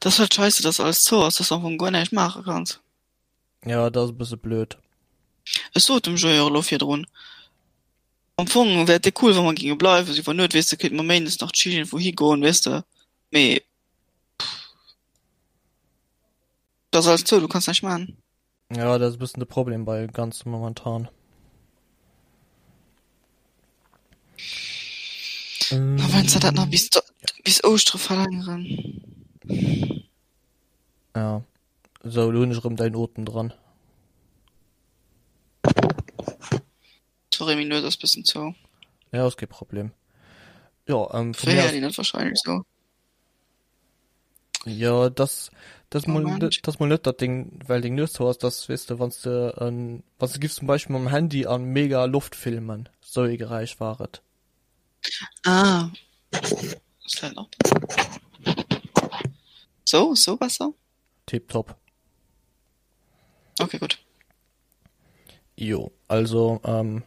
Dat ass halt scheisse, dass alles zou ass, dass du am Fong guer näischt maache kanns. Ja, dat ass e bësse blöd. Ech sot dem Joé och elo virdrun, am Fong wär et déck cool, wa mer géinge bleiwen, sou iwwer Nuet, weess de, kéinte mer méindes nach chill iergendwou higoen, weess de, mee et ass alles zou, du kanns näischt maachen. Ja, dat ass e bëssen de Problem bei ganze momentan. A wann se dat nach bis, bis Ouschtere verlängeren. Ja. Sou, lo hunn ech erëm däin Otem dran. Sorry, meng Nues ass bëssen zou. Ja, ass kee Problem. Jo, ähm, vu mir aus. Net wahrscheinlech sou. Jo, dass, dass mol, dass mol net dat deng, well deng Nues zou ass, dass, weess de, wann s de en, wann s de giffs zum Beispill mam Handy an mega Loft filmen, sou ee Geräisch war et. Ah. Ist vielleicht noch besser. So, so besser? Tiptop. Okay, gut. Jo, also, ähm,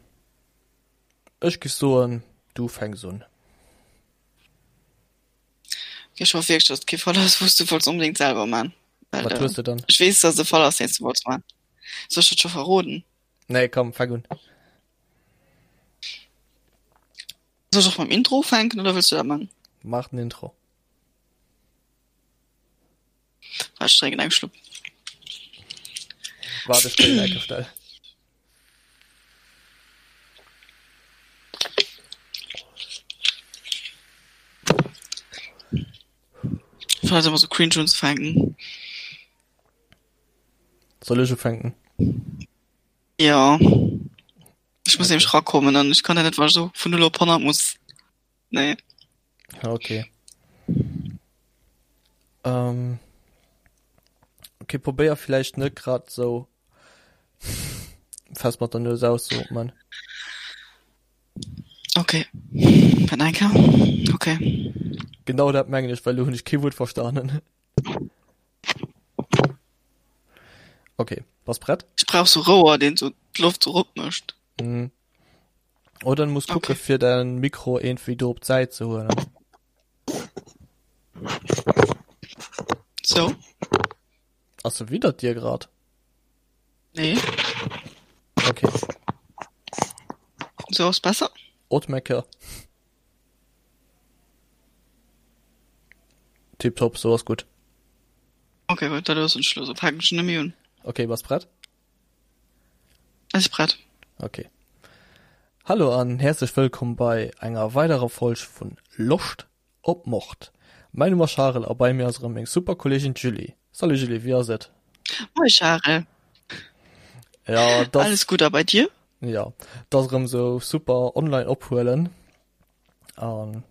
ech giff soen, du fänks un. Okay, ech hoff wierklech, dass et kee Fall ass, wou s du wollts onbedéngt selwer man. Well, Wat hues de dann? Ech weess, dass et e Fall ass, deen s du wollts man. Soll ech dat scho verroden? Nee, komm, fänk un. Soll ech och mam Intro ufänken oder wëlls du dat man? Maach den Intro. Waart, ech drénken eng Schlupp. Waart, ech kréien eng Stell. Ich fand das immer so cringe unzufänken. Soll ech ufänken? Ja. Ich muss okay. nämlich rakommen an ich kann ja net, wann ich so vun 0 op 100 muss. Nee. Okay. Ähm, okay, probéier vielleicht net grad so fest mat der Nues auszuatmen. Okay. Warte eng Kéier. Okay. Genau dat mengen ech, well lo hunn ech kee Wuert verstanen. Okay, bass prett? Ech brauch so Rouer, deen so d'Loft so rop mécht. Mhm. Oder du muss kucke okay. fir dein Mikro irgendwie do op d'Säit ze huelen. So. Ass se widder dir grad? Nee. Okay. So ass besser? Otmecker. Tiptop, so ass gutt. Okay, gut, dann ass en Schluss. Fänken ech net méi un. Okay, bass prett? Ech si prett. Okay. Hallo an häerzlech wëllkomm bei enger weiderer Folg vun Loscht op Mord. Mäin Numm ass Charel a bei mir ass erëm meng super Kolleegin d'Julie. Salut Julie, wéi ass et? Moie Charel. Ja, das, Alles gutt a bei dir? Ja, dat ass erëm sou super online ophuelen an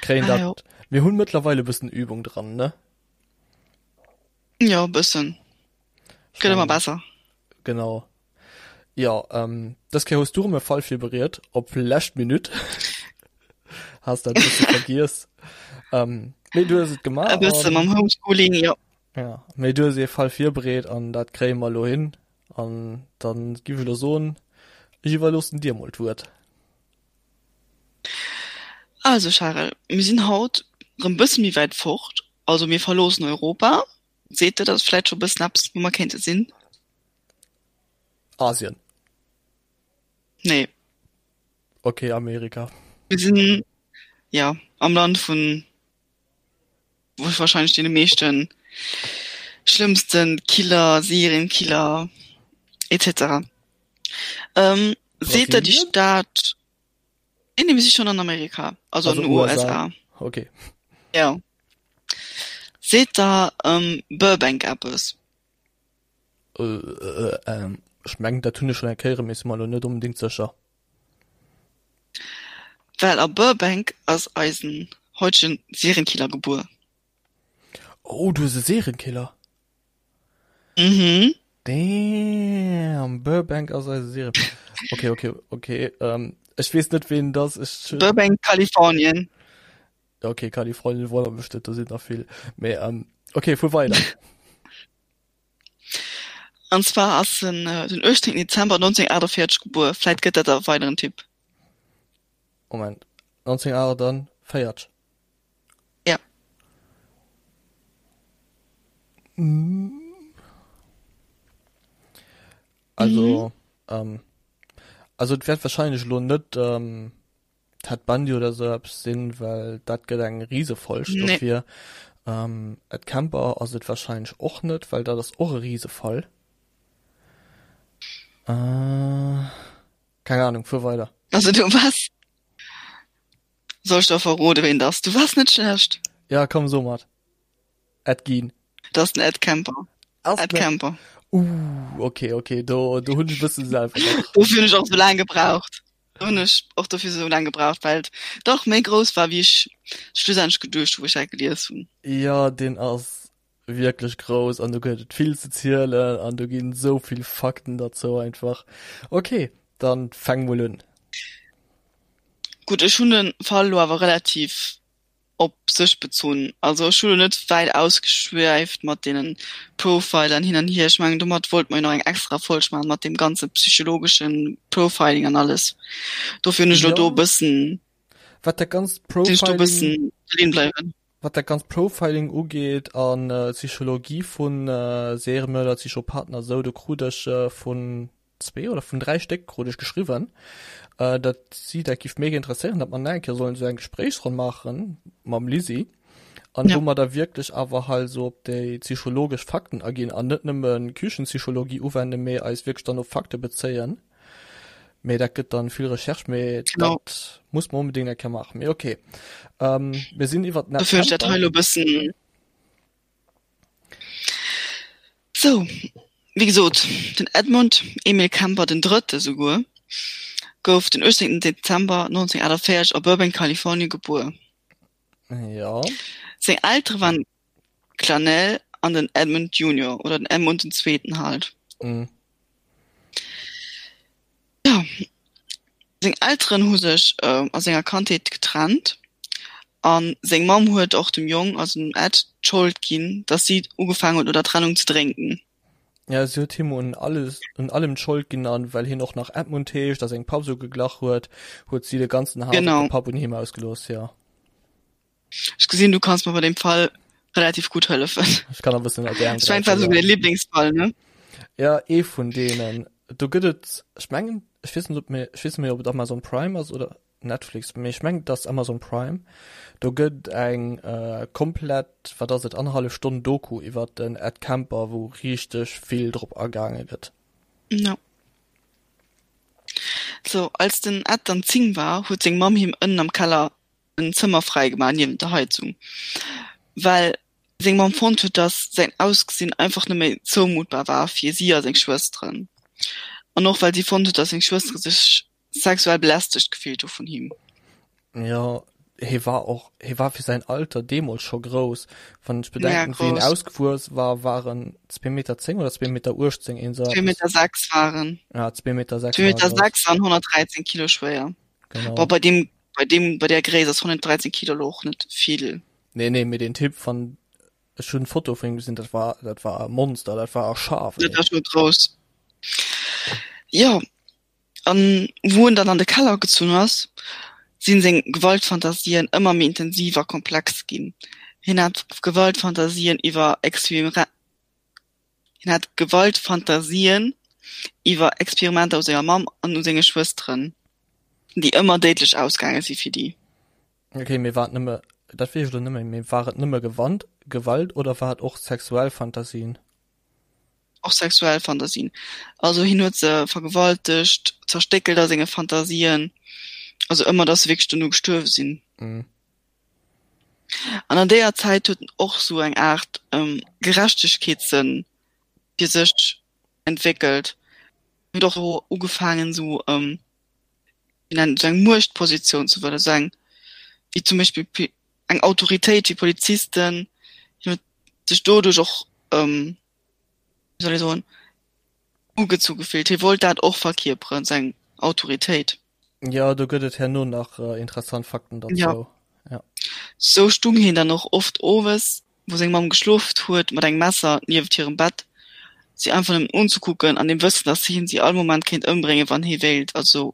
kréien ah, dat. Mir hunn mëttlerweil e bëssen Übung dran, ne? Jo, e bëssen. Gëtt ëmmer besser. Genau. Jo, ähm, dës Kéier hues du erëm e Fall virbereet, op lescht Minutt. Has dat e bësse vergiess. Ähm, mee du hues et gemaach. E bësse mam Homeschooling, jo. Ja, mee du hues ee Fall virbereet an dat kréie mer elo hin. An dann giff ech elo soen, ech iwwerloossen dir mol d'Wuert. Also Charel, mir sinn haut rëm bësse méi wäit fort, also mir verloossen Europa. Seet der dat vläit scho bëssen eppes, wou mer kéinte sinn? Asien. Nee. Okay, Amerika. Mir sinn, ja, am Land vun wahrscheinlech deene meeschten schlëmmsten Killer, Serienkiller etc. Ähm, seet der déi Stad? Nee, nee, mir si schon an Amerika, also, also an den USA. USA. Okay. Ja. Seet der ähm, Burbank eppes? Äh, äh, ähm, ech mengen, dat hunn ech schon eng Kéier, mee si mer elo net onbedéngt sécher. Well a Burbank ass eisen heutegen Serienkiller gebuer. Oh, du hues e Serienkiller? Mhm. Damn, Burbank ass eise Serien. Okay, okay, okay. Ähm, ech weess net, ween dat ass. Ech, Burbank, Kalifornien. Okay, Kalifornien wonnert mech net, do sinn der vill. Mee ähm, okay, fuer weider. An zwar ass en äh, den 18. Dezember 1948 gebuer. Vläit gëtt dat e weideren Tipp. Moment, 1948? Ja. Also, mhm. ähm, also et wäert wahrscheinlech lo net ähm, Ted Bundy oder sou eppes sinn, well dat gëtt eng Risefolg nee. dofir. Ähm, Ed Kemper ass et wahrscheinlech och net, well dat ass och e Risefall. Äh, keng Ahnung, fuer weider. Also du was? Soll ich der verrode wen das? Du warst net schlecht. Ja, komm so mat. Ed Gein. Dat ass den Ed Kemper. Ass Ed Kemper. Uh, okay, okay, do, do hunn ech e bëssen selwer nach. Dofir hunn ech och sou laang gebraucht. Do hunn ech och dofir sou laang gebraucht, well et dach méi grouss war, wéi ech schlussendlech geduecht hu, wou ech dat gelies hunn. Jo, deen ass wierklech grouss an do gëtt et vill ze zielen an do ginn esou vill Fakten derzou einfach. Okay, dann fäng mol un. Gutt, ech hunn de Fall elo awer relativ op sech bezunn. Also ech hu lo net wäit ausgeschwäift mat deenen Profilern hin an hier. Ech mengen domat wollt mer jo nach eng extra Folg maachen mat deem ganze psychologeschen Profiling an alles. Dofir hunn ech lo do e bëssen, Wat dat ganzt sinn ech do e bëssen Profiling, bleiwen. Wat dat ganzt Profiling ugeet an d'Psychologie vun Seriemörder, Psychopathen a sou, do krut ech vun zwee oder vun dräi Stéck krut ech geschriwwen, datt si dat giff mega interesséieren, datt mer nach eng Kéier sollen esou eng Gespréichsronn maache mam Lisi an wou mer da wierklech awer hei esou op déi psychologesch Fakten aginn an net nëmme Küchenpsychologie uwenden, mee eis wierklech dann op Fakte bezéien. Mee dat gëtt dann vill Recherche, mee dat muss mer onbedéngt eng Kéier maachen. Mee okay, mir sinn iwwert den Dofir hunn ech dat hei elo e bëssen. Sou, wéi gesot, den Edmund Emil Kemper den Drëtte souguer gouf den 18 Dezember 1948 a Burbank, Kalifornien gebuer. Jo. Seng Eltere waren d'Clanelle an den Edmund Junior, oder den Edmund den Zweeten halt. Mhm. Jo, seng Elteren hu sech a senger Kandheet getrennt a seng Mamm huet och dem Jong, also dem Ed, d'Schold ginn, datt si ugefaangen huet no der Trennung ze drénken. Jo, si huet him un alles, un allem d'Schold ginn an well hien och nach Edmund heescht a sengem Papp esou geglach huet, huet si de ganzen Haass op de Papp un him ausgelooss, jo. Ech gesinn, du kanns mer bei deem Fall relativ gutt hëllefen. Ech kann e bëssen op d'Äerm Ech mengen, et war souguer däi Liblingsfall, ne? Ja, ee vun deenen. Do gëtt et, ech mengen, ech weess net, ob mir, ech weess net méi, ob et Amazon Prime ass oder Netflix, mee ech mengen, et ass Amazon Prime. Do gëtt eng komplett, wat ass et, annerhallef Stonn Doku iwwer den Ed Kemper, wou richteg vill drop agaange gëtt. Ja. Sou, als den Ed dann 10 war, huet seng Mamm him ënnen am Keller en Zëmmer fräi gemaach niewent der Heizung, well seng Mamm fonnt huet, dass säin Ausgesinn einfach net méi zoumuttbar war fir si a seng Schwësteren. An och well si fonnt huet, dass seng Schwëstere sech sexuell belästegt gefillt hu vun him. Jo, hie war och, hie war fir säin Alter deemools scho grouss. Wann ech bedenken, wéi en ausgewuess war, war en zwee Meter 10 oder zwee Meter 18, een esou eppes. Zwee Meter 6 war en. Ja, zwee Meter 6 war e grouss. Zwee Meter 6 an 113 Kilo schwéier. Genau. Boah, bei deem, bei deem, bei der Gréisst ass 113 Kilo lo och net vill. Nee, nee, mee deen Typ van, ech hunn Foto vun him gesinn, dat war, dat war e Monster, dat war e Schaf, Dat war schon grouss. Jo, an wou en dann an de Keller gezunn ass, sinn seng Gewaltfantasien ëmmer méi intensiv a komplex ginn. Hien hat Gewaltfantasien iwwer Experimenter. Hien hat Gewaltfantasien iwwer Experimenter u senger Mamm an u senge Schwësteren, déi ëmmer déidlech ausgaange si fir déi. Ok, mee war et nëmme, dat weess ech elo net méi, mee war et nëmme Gewand, Gewalt oder war et och sexuell Fantasien? Och sexuell Fantasien. Also hien huet se vergewaltegt, zerstéckelt a senge Fantasien, also ëmmer, datt se wierklech dono gestuerwe sinn. Mhm. An an deeër Zäit huet en och sou eng Aart Gerechtegkeetssënn fir sech entwéckelt. En huet och ugefaangen sou wéi nennt sou eng Muechtpositioun ze wëllen, sou eng wéi zum Beispill eng Autoritéit wéi Polizisten. Hien huet sech doduerch och wéi soll ee soen, ugezu gefillt. Hie wollt dat och verkierperen, seng Autoritéit. Jo, do gëtt et herno nach interessant Fakten derzou. Ja. Sou stung hien dann och oft owes, wou seng Mamm geschloft huet, mat engem Messer nieft hirem Bett, si einfach nëmmen unzekucken, an dem Wëssen, datt hien si all Moment kéint ëmbréngen, wann hie wéilt. Also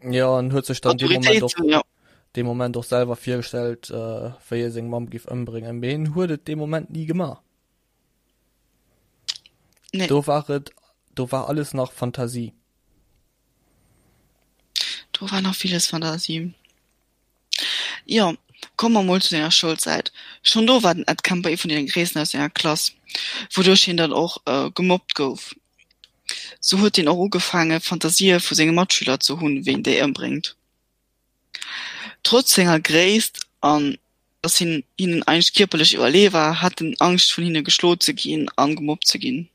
Jo, an huet sech dann dee Moment och, ja. dee Moment och selwer virgestellt, wéi e seng Mamm giff ëmbréngen, mee en huet et dee Moment ni gemaach. Nee. Do war et, do war alles nach Fantasie. Do war nach villes Fantasie. Jo, komme mer mol zu senger Schoulzäit. Schonn do war den Ed Kemper ee vun deene Gréissten aus senger Klass, wouduerch hien dann och gemobbt gouf. Sou huet hien och ugefaange Fantasië vu senge Matschüler ze hunn, wéi en déi ëmbréngt. Trotz senger Gréisst an datt hien hinnen eigentlech kierperlech iwwerlee war, hat en Angscht vun hinne geschloe ze ginn a gemobbt ze ginn.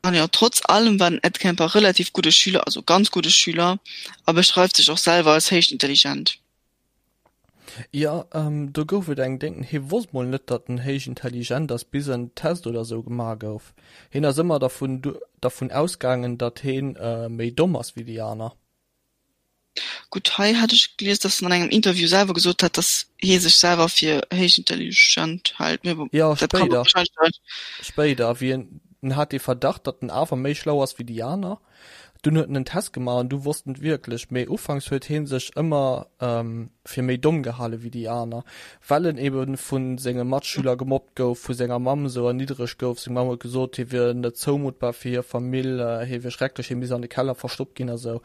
An jo, trotz allem war den Ed Kemper relativ gudde Schüler, also ganz gudde Schüler, a beschreift sech och selwer als héich intelligent. Jo, do gouf et eng Déng, hie wosst mol net, datt en héich intelligent ass, bis en Test oder sou gemaach gouf. Hien ass ëmmer dervun dervun ausgaangen, datt hien méi domm ass wéi déi aner. Gutt, hei hat ech gelies, datt en an engem Interview selwer gesot hat, datt hie sech selwer fir héich intelligent hält, mee bon, Jo, dat kann spéider. wahrscheinlech. Spéider, wéi en, en hat dee Verdacht, datt en awer méi schlau ass wéi déi aner. Dunn huet en en Test gemaach an du wosst en et wierklech. Mee ufanks huet hee sech ëmmer fir méi domm gehale wéi déi aner, well en ebe vu senge Matschüler gemobbt gouf, vu senger Mamm esou erniddregt gouf. Seng Mamm huet gesot, hie wier net zoumuttbar fir hir Famill, hie wier schrecklech, hie misst an de Keller verstoppt ginn a sou.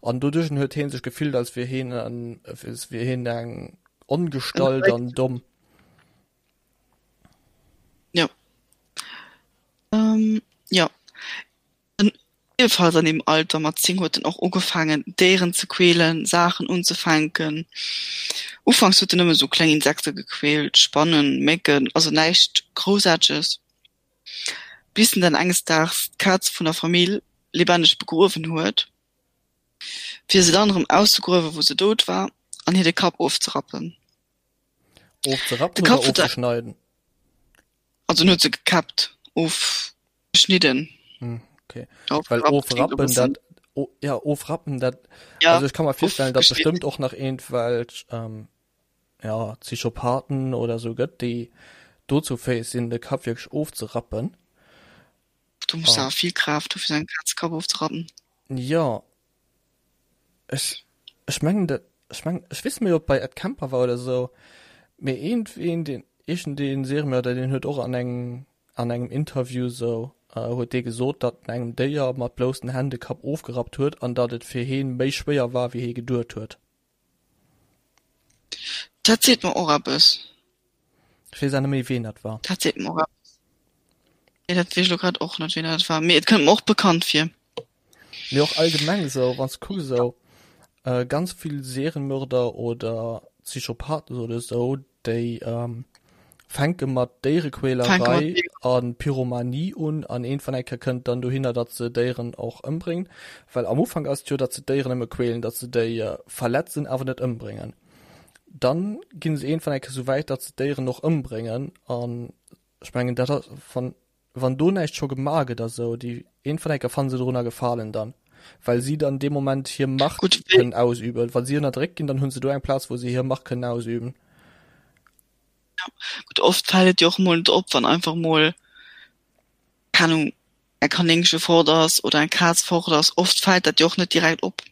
An doduerch huet hee sech gefillt, als wier hien en, als wier hien eng Ongestalt an domm. Jo. Jo. Iewefalls an deem Alter mat 10 huet en och ugefaangen Déieren ze quälen, Saachen unzefänken. Ufanks huet en nëmme sou kleng Insekte gequält, Spannen, Mécken, also näischt Groussaarteges. Bis en dann enges Daags d'Kaz vun der Famill lebendig begruewen huet, fir se dann erëm auszegruewen, wou se dout war, an hir de Kapp ofzerappen. Ofzerappen oder ofzeschneiden? Also en huet se gekäppt, ofgeschnidden. Hm, okay. Well ofrappen, dat, oh, ja, ofrappen, dat, ja, also ech kann mer virstellen, datt bestëmmt och nach iergendwelch, ähm, ja, Psychopathen oder sou gëtt, déi dozou fäeg sinn, de Kapp wierklech ofzerappen. Du muss awer vill Kraaft hu fir sou engem Kaz de Kapp ofzerappen. Jo, Ech, ech mengen dat, ech mengen, ech weess net méi ob bei Ed Kemper war oder esou, mee iergendween deen, iergendeen Seriemörder deen huet och an engem, an engem Interview esou, huet dee gesot, datt en engem Déier mat bloussen Hänn de Kapp ofgerappt huet an datt et fir heen méi schwéier war wéi hee geduet huet. Dat seet mer och eppes. Ech weess awer net méi ween dat war. Dat seet mer och eppes. Nee, dat weess ech lo grad och net ween dat war, mee et kënnt mer och bekannt vir. Mee och allgemeng esou, wann s de kucks esou ganz vill Serienmörder oder Psychopathen oder esou, déi fänke mat Déierequälerei a Pyromanie un an iergendwann eng Kéier kënnt dann dohinner, datt se Déieren och ëmbréngen. Well am Ufank ass et jo, datt se d'Déieren nëmme quälen, datt se déi verletzen, awer net ëmbréngen. Dann ginn se iergendwann eng Kéier esou wäit, datt se d'Déieren och ëmbréngen an ech mengen dat ass wann wann do näischt scho gemaach gëtt a sou, déi iergendwann eng Kéier fanne se dorunner Gefalen dann, well si dann dee Moment hir Macht Gutt, kënnen ausüben. Wa si ënnerdréckt ginn, dann hunn se do eng Plaz, wou se hir Macht kënnen ausüben. Gutt, oft fält et jo och mol net op, wann einfach mol, keng Ahnung, e Kanéngche fort ass oder eng Kaz fort ass. Oft fält dat jo och net direkt op.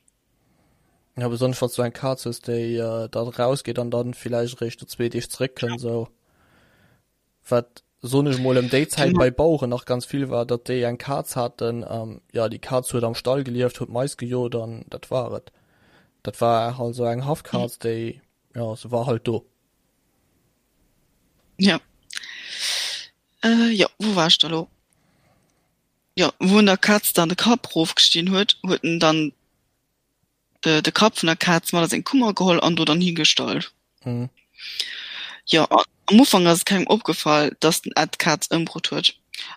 Ja, besonnesch wann s du eng Kaz hues, déi da rausgeet an dann villäicht eréischt no zwee Deeg zeréckkënnt, sou. Wat, soen ech mol, ëm déi Zäit bei Baueren nach ganz vill war, datt déi eng Kaz haten, jo, déi Kaz huet am Stall gelieft, huet Mais gejot an dat war et. Dat war halt sou eng Haffkaz, déi, jo, se war halt do. Jo. Jo, wou war ech da lo? Jo, wou en der Kaz dann de Kapp rofgestinn huet, huet en dann de, de Kapp vun der Kaz mat a seng Kummer geholl an do dann higestallt. Mhm. Jo, am Ufank ass et kengem opgefall, dass den Ed d'Kaz ëmbrutt huet.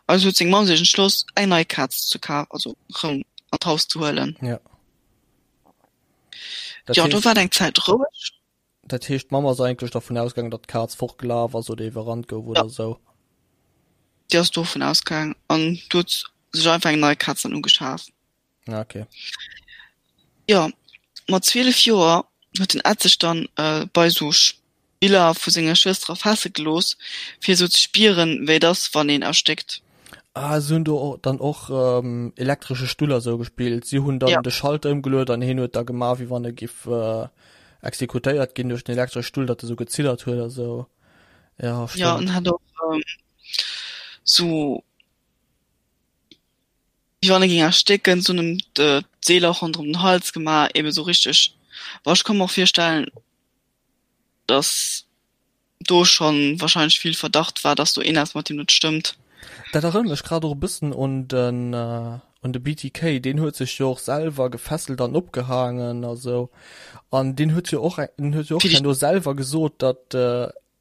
Also huet seng Mamm sech entschloss, eng nei Kaz ze kafen, also rëm an d'Haus ze huelen. Ja. Dat Jo, do heescht, war et eng Zäit roueg. dat heescht, d'Mamm ass eigentlech dervun ausgaangen, datt d'Kaz fortgelaf ass oder iwwerrannt gouf Ja, oder esou. déi ass dovun ausgaangen an du huet sech einfach eng nei Kaz dann ugeschaf. Ah, okay. Jo, mat 12 Joer huet den Ed sech dann bei sou Spiller vu senger Schwëster erfaasse gelooss, fir sou ze spieren, wéi et ass, wann een erstéckt. Ah, se hunn do dann och elektresche Stull a sou gespillt. Si hunn dann Ja. de Schalter ëmgeluet an hien huet da gemaach, wéi wann e giff exekutéiert ginn duerch den elektresche Stull, datt e sou geziddert huet a sou. Ja, Ja, stëmmt. en hat och. Sou wéi wann e géing erstécken, se hunn em d'Seeler ronderëm den Hals gemaach, eben sou richteg. Bon, ech ka mer och virstellen, dass do schonn wahrscheinlech vill Verdacht war, dass do eeneps mat him net stëmmt. Dat erënnert mech grad och e bëssen un den un de BTK, deen huet sech jo och selwer gefesselt an opgehaangen a sou an deen huet jo och en huet jo och herno selwer gesot, datt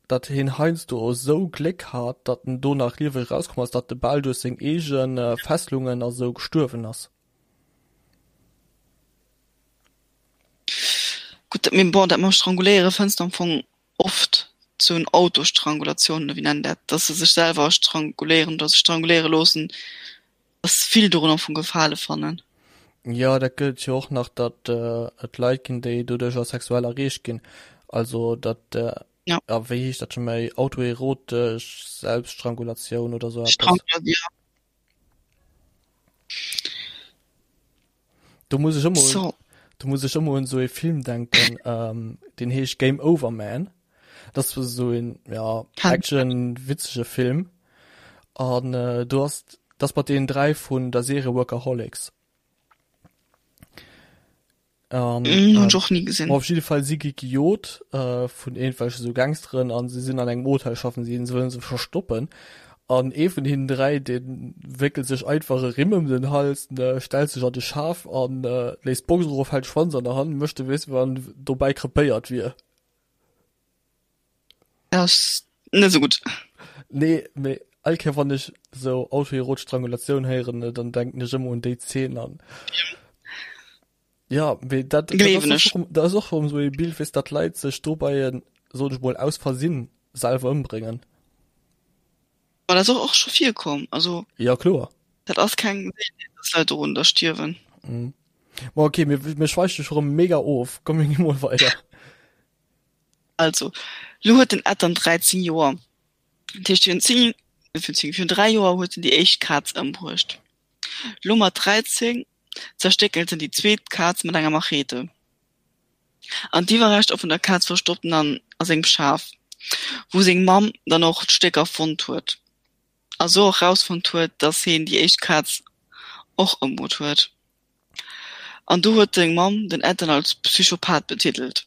datt hien heiansdo esou Gléck hat, datt en do nach lieweg erauskomm ass, datt e bal duerch seng eege Fesselungen a sou gestuerwen ass. Gutt, mee bon, dat mam Stranguléiere fënns de am Fong oft, sou en Autostrangulation oder wéi nennen dat, datt se sech selwer stranguléieren oder sech stranguléiere loossen, datt vill dorun am Fong Gefale fannen. Jo, dat gëtt et jo och nach, datt et Leit ginn, déi doduercher sexuell erreegt ginn. Also datt, Ja. a wéi heescht dat scho méi, autoerotesch Selbststrangulatioun oder sou eppes. Strangula, ja. Do muss ech ëmmer un, So. do muss ech ëmmer un sou ee Film denken, ähm, deen heescht Game Over Man. Dat ass sou een, ja, Kann. Action, witzege Film. An äh, do ass, dat ass mat deenen 3 vun der Serie Workaholics. An, Mm, hunn ech ähm, och ni gesinn. ma op jidde Fall si gi gejot äh, vun iergendwelche sou Gangsteren an si sinn an engem Hotel schaffen si, se wëllen se verstoppen. An ee vun hinnen 3, dee wéckelt sech einfach e Rimm ëm den Hals, ne, stellt sech an de Schaf an äh, léisst d'Box erof, hält d'Schwanz an der Hand, mécht ewéi wann dobäi krepéiert wier. Dat ass net esou gutt. Nee, mee all Kéier wann ech sou autoerotesch Strangulatioun héieren, dann denken ech ëmmer un déi Zeen an ja, mee dat, dat Gleewen ass ech. och, dat ass och erëm sou ee Bild, weess, datt Leit sech dobäi, soen ech mol, aus Versinn selwer ëmbréngen. Ma dat ass och och scho virkomm, also Ja, kloer. dat ass keng Seeltenheet, dass Leit dorunner stierwen. Mhm. Ma okay, mir, mir schweife scho rëm mega of, komm mir gi mol weider. Also, lo huet den Ed dann 13 Joer. Dat heescht, virun 10, virun 10, virun 3 Joer huet en déi éischt Kaz ëmbruecht. Lo mat 13 zerstéckelt en déi zweet Kaz mat enger Machete. An d'Iwwerreschter vun der Kaz verstoppt en dann a sengem Schaf, wou seng Mamm dann och d'Stécker fonnt huet. A sou och rausfonnt huet, dass heen déi éischt Kaz och ëmbruet huet. An do huet seng Mamm den Ed dann als Psychopath betitelt.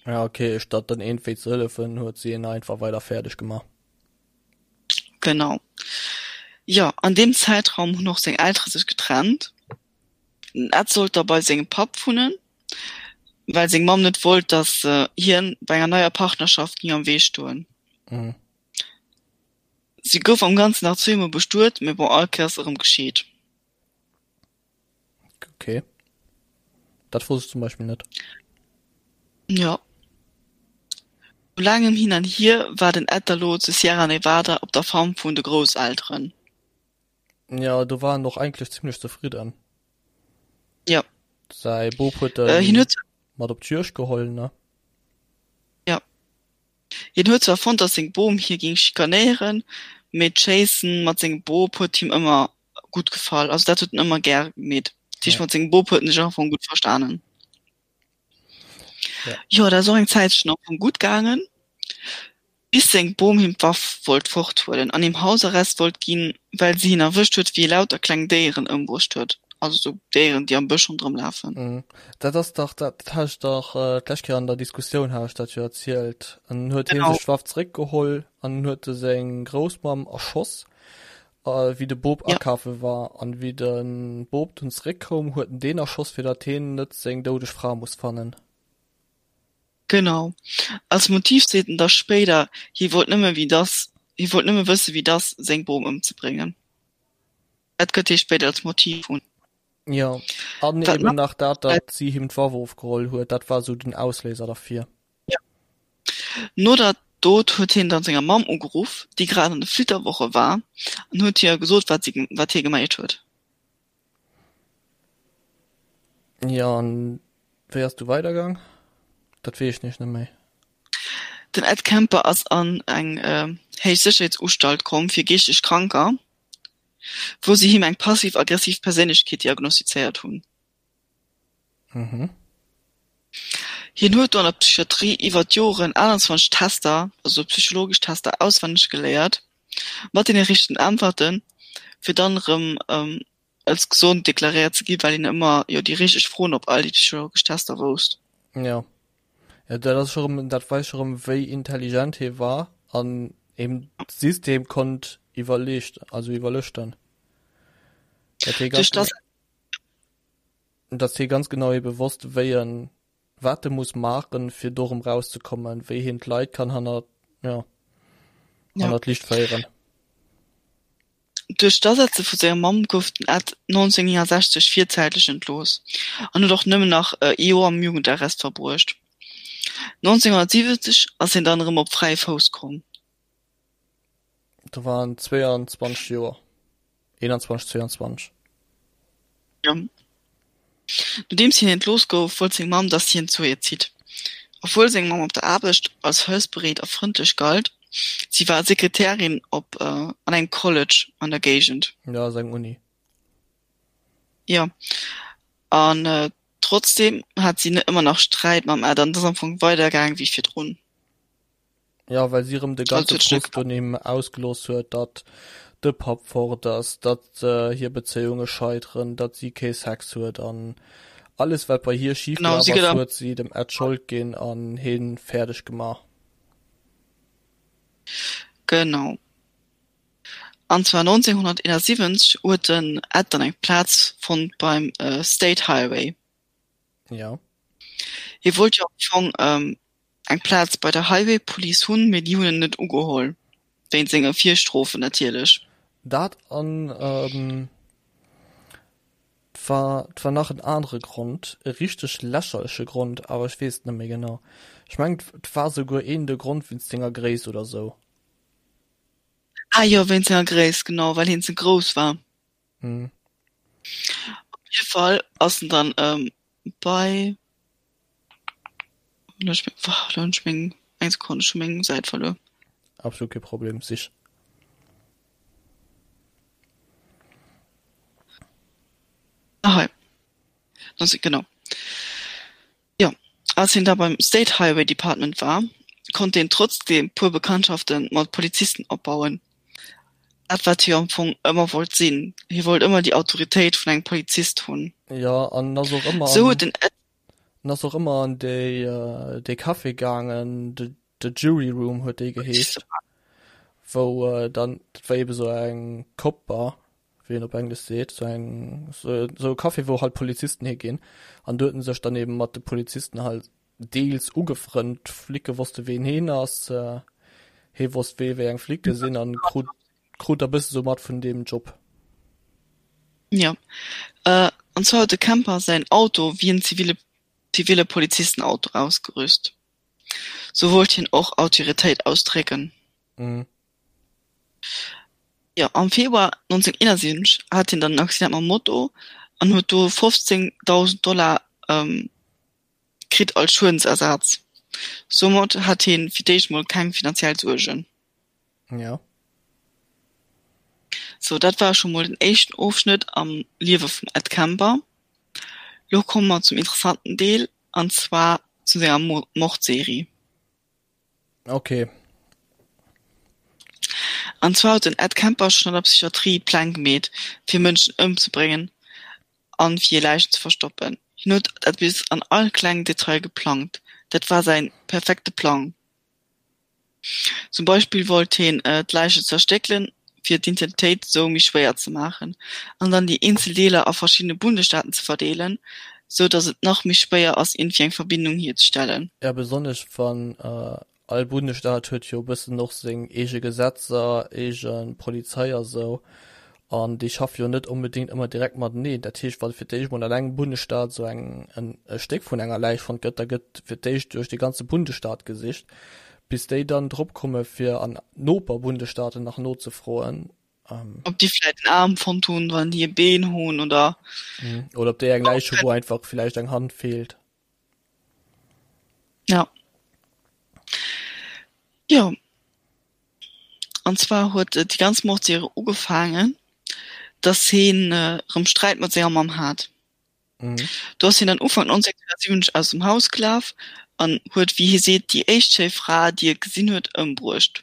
Ja okay, statt dann iergendwéi ze hëllefen, huet si en einfach weider fäerdeg gemaach. Genau. Jo, an deem Zäitraum hunn och seng Eltere sech getrennt. Den Ed sollt da bei sengem Papp wunnen, well seng Mamm net wollt, datt hien bei enger neier Partnerschaft géing am Wee stoen. Mhm. Si gouf am Ganzen nach zweemol bestuet, mee bon, all Kéiers erëm gescheet. Okay. Dat wosst ech zum Beispill net. Jo. No laangem Hin an Hier war den Ed da lo zu Sierra Nevada op der Farm vun de Grousselteren. Ja, do war en och eigentlech zimlech zefridden. Ja. Säi Bop huet Äh, en hien huet mat op d'Juegd geholl, ne? Ja. Hien huet zwar fonnt, datt seng Bom hie géing schikanéieren, mee d'Schéissen mat sengem Bop huet him ëmmer gutt gefall. Also dat huet en ëmmer gär gemeet. Dat heescht, Ja. mat sengem Bop huet en sech am Fong gutt verstanen. Ja. Jo, dat ass och eng Zäitchen am Fong gutt gaangen, bis seng Bom him d'Waff wollt forthuelen an him Hausarrest wollt ginn, well si hien erwëscht huet, wéi e lauter kleng Déieren ëmbruecht huet, also sou Déieren, déi am Bësch ronderëm lafen. Mhm. Dat ass dach, dat hat ech dach d'lescht Kéier an der Diskussioun hat ech dat jo erzielt. An dann huet hie Genau. sech d'Waff zeréckgeholl an dann huet e seng Groussmamm erschoss, wéi de Bop Ja. akafe war. An wéi de Bop dunn zeréckkoum, huet en deen erschoss, fir datt hien net seng doudeg Fra muss fannen. Genau. Als Motiv seet en da spéider, hie wollt nëmme wéi dass, hie wollt nëmme wësse wéi dass seng Bom ëmzebréngen. Dat gëtt hie spéider als Motiv un. Jo, an Wat eben nach nach dat, datt si him d'Waff ofgeholl huet, dat war sou den Ausléiser derfir. Ja. No der Dot huet hien dann senger Mamm ugeruff, déi grad an de Flitterwoche war, an huet hir gesot, wat si, wat hie geméit huet. Jo, an wéi ass du weidergaang? Dat weess ech nämlech net méi. Den Ed Kemper ass an eng Héichsécherheetsustalt komm fir geeschteg Kranker, wou si him eng passiv-aggressiv Perséinlechkeet diagnostizéiert hunn. Mhm. Hien huet do an der Psychiatrie iwwer d'Joren 28 Tester, also psychologesch Tester, auswenneg geléiert. Mat deene richtegen Äntwerten, fir dann erëm als gesond deklaréiert ze ginn, well een ëmmer jo déi richteg Froen op all déi psychologesch Tester wousst. Jo, jo dat ass scho rëm, dat weist scho rëm wéi intelligent hie war an eben d'System konnt iwwerleescht, also iwwerlëschten. Dat hie ganz Duerch dass. Datt hie ganz genau ebe wosst wéi en wat e muss maachen, fir do erëm rauszekommen, wéi hien d'Leit kann hannert, jo, Ja. hannert d'Liicht féieren. Duerch d'Asetze vu senger Mamm gouf den Ed 1969 virzäitlech entlooss an huet och nëmmen nach ee Joer am Jugendarrest verbruecht. 1970 ass hien dann erëm op fräie Fouss komm. Do war en 22 Joer, 21, 22. Jo. Nodeems hien entlooss gouf, wollt seng Mamm, datt hien zu hir zitt. Obwuel seng Mamm op der Aarbecht als hëllefsbereet a frëndlech galt, si war Sekretärin op an engem College an der Géigend. Jo, ass eng Uni. Jo, an trotzdeem hat si ëmmer nach Sträit mam Ed an et ass am Fong weidergaang wéi virdrun. Ja, well si erëm de ganze Frust un him ausgelooss huet, datt de Papp fort ass, datt hir Bezéiunge scheiteren, datt si kee Sex huet an alles wat bei hir schif gelaf ass, huet si dem Ed d'Schold ginn an hie fäerdeg gemaach. Genau. An zwar 1971 huet den Ed dann eng Plaz fonnt beim State Highway. Ja. Hie wollt jo am Fong eng Plaz bei der Highway Police hunn, mee déi hunn en net ugeholl, wéint senge Virstrofen natierlech. Dat an et war, et war nach en anere Grond, e richteg lächerleche Grond, awer ech weess et net méi genau. Ech mengen, et war souguer een de Grond wéinst senger Gréisst oder sou. Ah jo, wéinst senger Gréisst, genau, well hien ze grouss war. Mhm. Op jidde Fall ass en dann ähm, bei Lo hunn ech meng eng Sekonn, ech hu meng Säit verluer. Absolut kee Problem, sich. Ah hei. Genau. Jo, als hien da beim State Highway Department war, konnt hien trotzdeem puer Bekanntschafte mat Polizisten opbauen. Dat wat hie am Fong ëmmer wollt sinn, hie wollt ëmmer déi Autoritéit vun engem Polizist hunn. Jo, an en ass och ëmmer Sou huet den Ed. En ass och ëmmer an déi, dee Café gaangen, de, de Jury Room huet dee geheescht, wou dann, dat war eebe sou eng Cop Bar, wéi een op Englesch seet, sou eng, sou e Café, wou halt Polizisten higinn. An do huet en sech dann eben mat de Polizisten halt deels ugefrënnt. D'Flicke wosste ween heen ass, hee wosst wee wéi eng Flicke sinn an krut, krut da bësse sou mat vun deem Job. Jo, an zwar huet de Kemper säin Auto wéi en zivile, zivile Polizistenauto ausgerüst. Sou wollt hien och Autoritéit ausdrécken. Mhm. Jo, am Februar 1971 hat hien dann en Accident mam Moto an huet do 15.000 Dollar kritt als Schuedensersaz. Soumat hat hien fir d'éischt mol keng finanziell Suergen. Ja. Sou, dat war scho mol den éischten Ofschnëtt am Liewe vum Ed Kemper. Lo komme mer zum interessanten Deel, an zwar zu senger Mordserie. Okay. An zwar huet den Ed Kemper schonn an der Psychiatrie Pläng gemeet, fir Mënschen ëmzebréngen an fir hir Läichen ze verstoppen. Hien huet dat bis an all klengen Detail geplangt. Dat war säin perfekte Plang. Zum Beispill wollt hien d'Läichen zerstéckelen, fir d'Identitéit sou méi schwéier ze maachen, an dann déi eenzel Deeler a verschiddene Bundesstaaten ze verdeelen, sou datt et nach méi schwéier ass iergendwéi eng Verbindung hierzestellen. Ja, besonnesch wann all Bundesstaat huet jo e bëssen och seng eege Gesetzer, eege Polizei a sou, an déi schaffe jo net onbedéngt ëmmer direkt mateneen. Dat heescht, wa fir d'éischt mol an engem Bundesstaat sou eng en e Stéck vun enger Läich fonnt gëtt, da gëtt fir d'éischt duerch de ganze Bundesstaat gesicht, bis déi dann drop komme fir an Noperbundesstaaten nach nozefroen. Ob déi vläit en Aarm fonnt hunn, wann déi e Been hunn oder. Oder ob déi eng Läich hu wou einfach villäicht eng Hand feelt. Ja. Jo. An zwar huet déi ganz Mordserie ugefaangen, dass heen erëm Sträit mat senger Mamm hat. Do ass hien dann Ufank 1970 aus dem Haus gelaf an huet, wéi hie seet, déi éischt schéi Fra, déi e gesinn huet, ëmbruecht.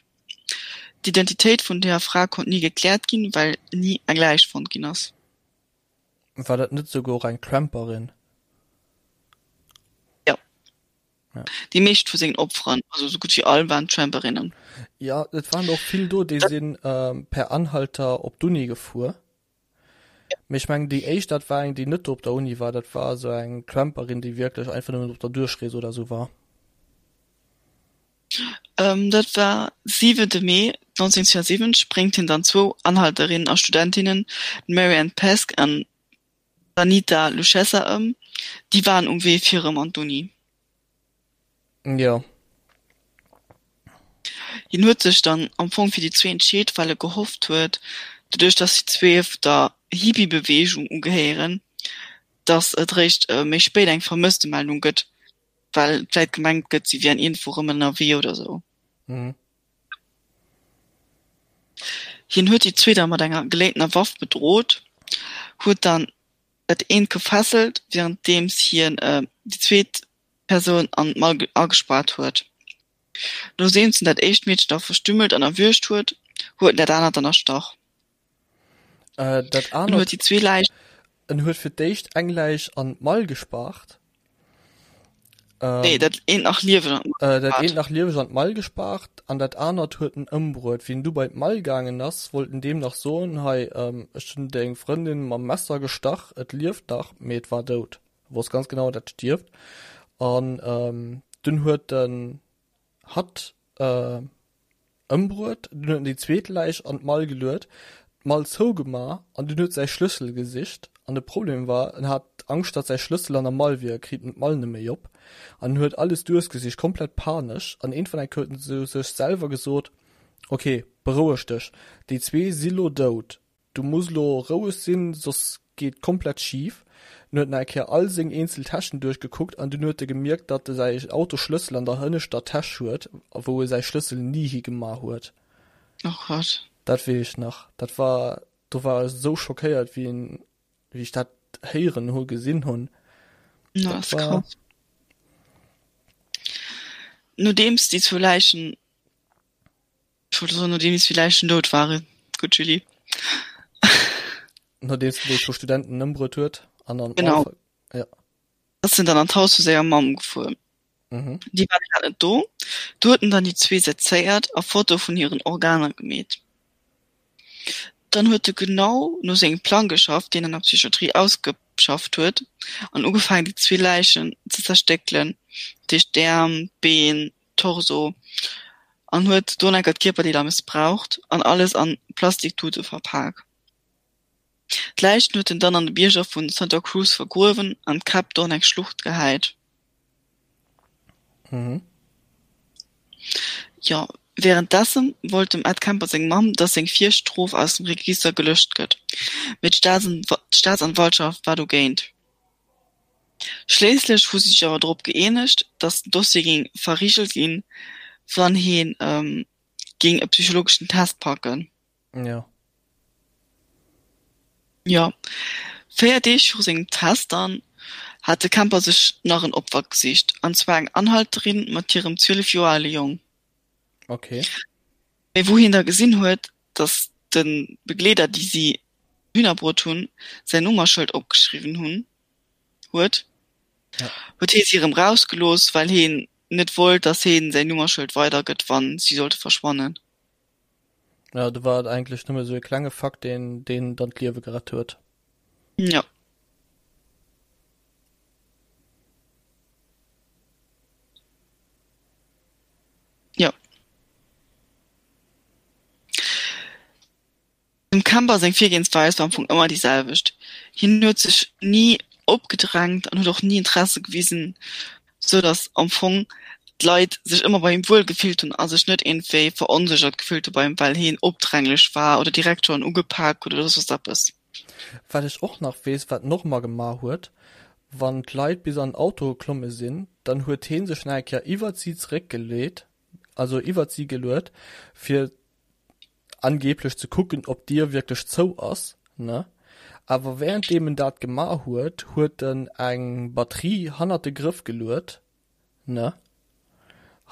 D'Identitéit vun der Fra konnt ni gekläert ginn, well ni eng Läich fonnt ginn ass. War dat net souguer och eng Tramperin? Jo. Ja. Déi meescht vu sengen Opferen, also sou gutt wéi all, waren Tramperinnen. Ja, et waren och vill do, déi sinn per Anhalter op d'Uni gefuer. Mee ech mengen déi éischt, dat war eng, déi net do op der Uni war, dat war esou eng Tramperin, déi wierklech einfach nëmmen op der Duerchrees oder esou war. Dat war siwente Mee 1972, bréngt hien dann zwou Anhalterinnen a Studentinnen, d'Mary Ann Pesce an d'Anita Luchessa ëm. Déi waren um Wee fir erëm an d'Uni. Jo. Hien huet sech dann am Fong fir déi zwee entscheet, well e gehofft huet, doduerch datt déi zwee der Hippie-Beweegung ugehéieren, datt et réischt méi spéit eng Vermësstemeldung gëtt, well vläit gemengt gëtt, si wieren iergendwou rëm ënnerwee oder sou. Mhm. Hien huet déi zwee da mat enger geléintener Waff bedrot, huet dann dat eent gefesselt, wärenddeems hien déi zweet Persoun an d'Mall agespaart huet. Nodeems en dat éischt Meedchen da verstümmelt an erwürgt huet, huet en dat anert dann erstach. Äh, dat En huet anert, déi zwee Läichen. en huet fir d'éischt eng Läich an d'Mall gespaart. Nee, Ähm, dat eent nach lieweg an d'Mall äh, dat eent gespaart. nach lieweg an d'Mall gespaart an dat anert huet en ëmbruet. Wéi en du bei d'Mall gaangen ass, wollt en deem nach soen, hei, ähm, ech hunn deng Frëndin mam Messer gestach, et lieft nach, mee et war dout. E wosst ganz genau, dat stierft. An ähm, dunn huet en hatt äh, ëmbruet, dunn huet en déi zweet Läich an d'Mall geluet, d'Mall zougema an dunn huet säi Schlëssel gesicht. An de Problem war, en hat Angscht, datt säi Schlëssel an der Mall wier, e kritt en d'Mall net méi op. An en huet alles duerchgesicht, komplett panesch. An iergendwann eng Kéier huet en zu sech selwer gesot, Ok, beroueg dech, déi zwee si lo dout, Du muss lo roueg sinn, soss geet komplett schif. En huet nach eng Kéier all seng eenzel Täschen duerchgekuckt an dunn huet e gemierkt, datt e säi Autosschlëssel an der hënneschter Täsch huet, wou e säi Schlëssel ni higema huet. Oh Gott. Dat weess ech nach. Dat war, do war ech esou schockéiert, wéi en, wéi ech dat héieren hu, gesinn hunn. Dat Dat ass war. krass. Nodeems déi zwou Läichen Ech wollt soen, nodeems déi Läichen dout waren. Gutt, Julie. Nodeems en déi zwou Studenten ëmbruet huet an an Genau. d'Mall. Ja. Ass en dann an d'Haus vu senger Mamm gefuer. Mhm. Déi war grad net do. Do huet en dann déi zwee sezéiert a Fotoe vun hiren Organer gemeet. Dann huet e genau no sengem Plang geschafft, deen en an der Psychiatrie ausgeschafft huet, an ugefaangen, déi zwee Läichen ze zerstéckelen, dat heescht d'Äerm, d'Been, Torso an huet do enker d'Kierperdeeler mëssbraucht an alles an Plastiktute verpak. D'Läichen huet en dann an de Bierger vu Santa Cruz vergruewen an d'Käpp do an eng Schlucht gehäit. Mhm. Jo, wärenddessen wollt dem Ed Kemper seng Mamm, dass seng Virstrof aus dem Register gelöscht gëtt, mee d'Staatsanwaltschaft war dogéint. Schliisslech hu si sech awer drop gëeenegt, datt den Dossier géing verrigelt ginn, wann hie géing e psychologeschen Test packen. Jo. Jo. 4 Deeg viru sengem Test dann hat de Kemper sech nach en Opfer gesicht, an zwar eng Anhalterin mat hirem 12 Joer ale Jong. Okay. Mee wou hien da gesinn huet, datt de Begleeder, déi si dohinner bruet hunn, säin Nummerschëld opgeschriwwen hunn, huet, Ja. huet hee si erëm rausgelooss, well heen net wollt, datt heen säin Nummerschëld weidergëtt, wann si sollte verschwannen. Ja, do war et eigentlech nëmme sou e klenge Fakt, deen deen dann d'Liewe gerett huet. Ja. Jo. Dem Kemper seng Virgehensweis war am Fong ëmmer déi selwecht. Hien huet sech ni opgedrängt an huet och ni Interesse gewisen, sou datt am Fong d'Leit sech ëmmer bei him wuel gefillt hunn a sech net iergendwéi veronséchert gefillt hu bei him, well hien opdränglech war oder direkt schonn ugepak huet oder soss eppes. Wat ech och nach weess, wat en och ëmmer gemaach huet, wann d'Leit bis an den Auto geklomme sinn, dann huet hee sech nach eng Kéier iwwert si zeréckgeleet, also iwwert si geluet, fir angeblech ze kucken, ob d'Dier wierklech zou ass, ne? Awer währenddeem en dat gemaach huet, huet en eng Batterie hannert de Grëff geluet, ne?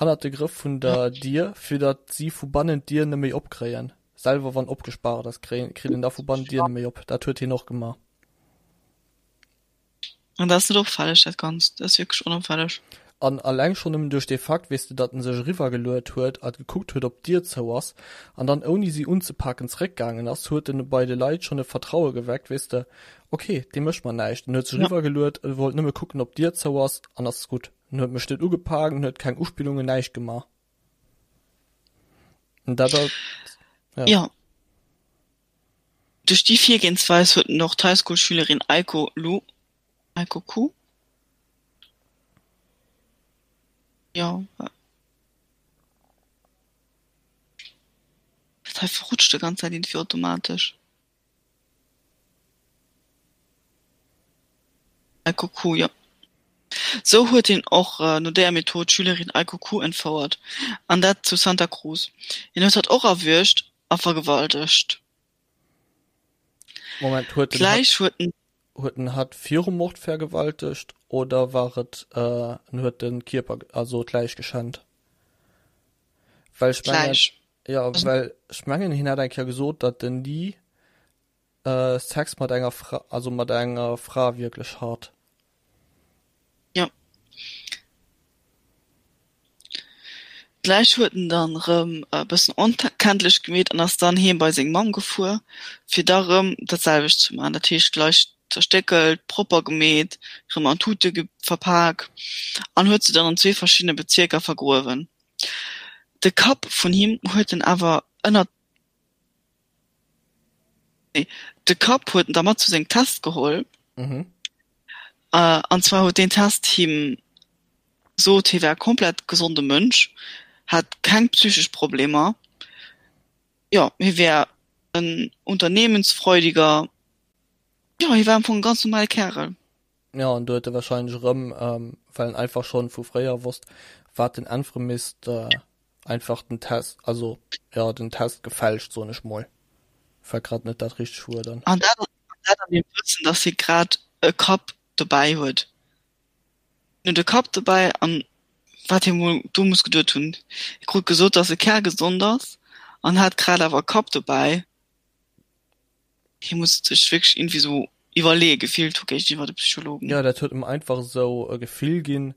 Hannert de Grëff vun der Dier, fir datt si vu bannen d'Dier neméi opkréien. Selwer wann opgespaart ass, kréien, kritt een da vu bannen d'Dier neméi op. Dat huet hien och gemaach. An dat ass net opfälleg, dat Ganzt. Dat ass wierklech onopfälleg. An alleng schonn nëmmen duerch dee Fakt, weess de, datt en sech eriwwergeluet huet a gekuckt huet, ob d'Dier zou ass, an dann ouni si unzepaken zeréckgaangen ass, huet en bei de Leit schonn e Vertraue geweckt, weess de, ok, dee mécht mer näischt. En huet sech eriwwergeluet, e wollt nëmme kucken, ob d'Dier zou ass, an ass gutt. En huet mech net ugepaakt, en huet keng Uspillungen, näischt gemaach. An dat ass, ja. Jo. Duerch déi Virgehensweis huet en och d'Highschool-Schülerin Aiko Lu, Aiko Ku? Jo, dat hei verrutscht de ganz Zäit iergendwéi automatesch. Aiko Ku, jo. Sou huet hien och no déier Method d'Schülerin Aiko Ku entfouert, an dat zu Santa Cruz. Hien huet hatt och erwuergt a vergewaltegt. Moment, huet en hatt, huet en. Huet en hatt virum Mord vergewaltegt oder war et en huet de Kierper, also d'Läich geschännt? Well ech mengen, D'Läich. jo, well ech mengen hien hat eng Kéier gesot, datt en ni Sex mat enger Fra, also mat enger Fra wierklech hat. Jo. D'Läich huet en dann rëm e bëssen onkenntlech gemeet an ass dann heem bei seng Mamm gefuer, fir da rëm dat selwecht ze man. Dat heescht d'Läich zerstéckelt, propper gemeet, rëm an Tute verpak an huet se dann an zwee verschiddene Bezierker vergruewen. De Kapp vun him huet en awer ënnert Nee, de Kapp huet en da mat zu sengem Test geholl. Mhm. Äh, an zwar huet deen Test him gesot, hie wär e komplett gesonde Mënsch, hätt keng psychesch Problemer. Jo, hie wär en unternehmensfreudiger, jo, hie war am Fong e ganz normale Kärel. Jo, an do huet e wahrscheinlech erëm, well en einfach schonn vu fréier wosst, wat en äntwere misst, Einfach den Test, also jo den Test gefälscht soen ech mol, fällt grad net dat richteg Wuert an. An dat dat an dem Wëssen, dass hie grad e Kapp dobäi huet. Hien huet e Kapp dobäi an wat hie mol do muss geduet hunn, hie krut gesot, dass e kärgesond ass an hat grad awer e Kapp dobäi. Hie muss sech wierklech iergendwéi sou iwwerleeë gefillt hu géigeniwwer de Psychologen. Jo, dat huet em einfach esou e Gefill ginn,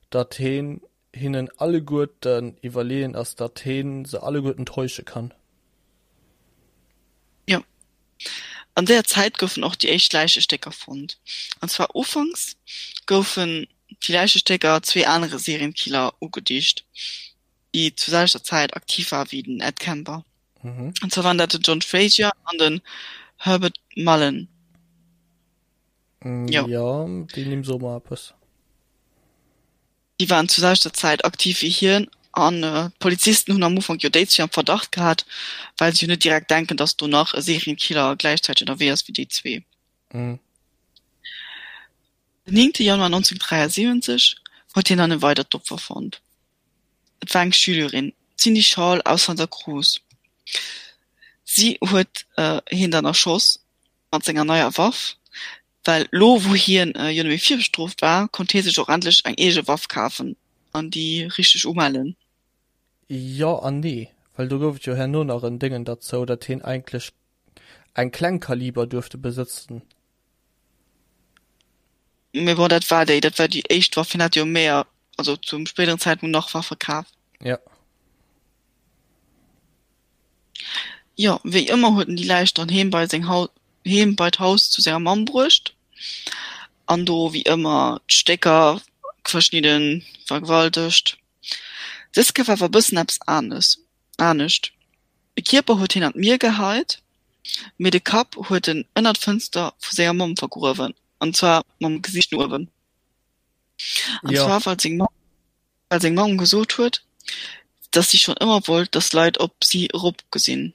datt heen hinnen alleguerten iwwerleeën ass, datt heen se alleguerten täusche kann. Jo. An deeër Zäit goufen och déi éischt Läichestécker fonnt. An zwar ufanks goufen déi Läichestécker zwee anere Serienkiller ugedicht, déi zur selwechter Zäit aktiv war wéi den Ed Kemper. Mhm. An zwar waren dat den John Frazier an den Herbert Mullin. Mm, jo. Ja, déi Nimm soe mer eppes. Déi waren zur selwechter Zäit aktiv wéi hien an d'Polizisten hunn am Ufank jo déi zwee am Verdacht gehat, well se jo net direkt denken, datt do nach e Serienkiller gläichzäiteg ënnerwee ass wéi déi zwee. Mhm. Den 9 Januar 1973 huet hien dann e weidert Opfer fonnt. Et war eng Schülerin, d'Cindy Schall aus Santa Cruz. Si huet hien dann erschoss mat senger neier Waff, well lo wou hien jo net méi virbestrooft war, konnt hie sech och endlech eng eege Waff kafen an déi richteg umellen. Jo an nee, well do gouf et jo herno nach en Déngen derzou, datt hien eigentlech eng Klengkaliber duerfte besëtzen. Mee bon, dat war déi, dat war déi éischt Waff. Hien hat jo méi, also zum spéideren Zäitpunkt nach Waffe kaf. Ja. Jo, wéi ëmmer huet en déi Läich dann heem bei seng Haus, heem bei d'Haus zu senger Mamm bruecht an do wéi ëmmer d'Stécker verschnidden, vergewaltegt. Dës Kéier war awer e bëssen eppes anes, anescht. De Kierper huet hien an d'Mier geheit, mee de Kapp huet en ënner d'Fënster vu senger Mamm vergruewen, an zwar mam Gesiicht no uewen. An Ja. zwar well seng Mamm, well seng Mamm gesot huet, dass si schonn ëmmer wollt, dass Leit op si eropgesinn,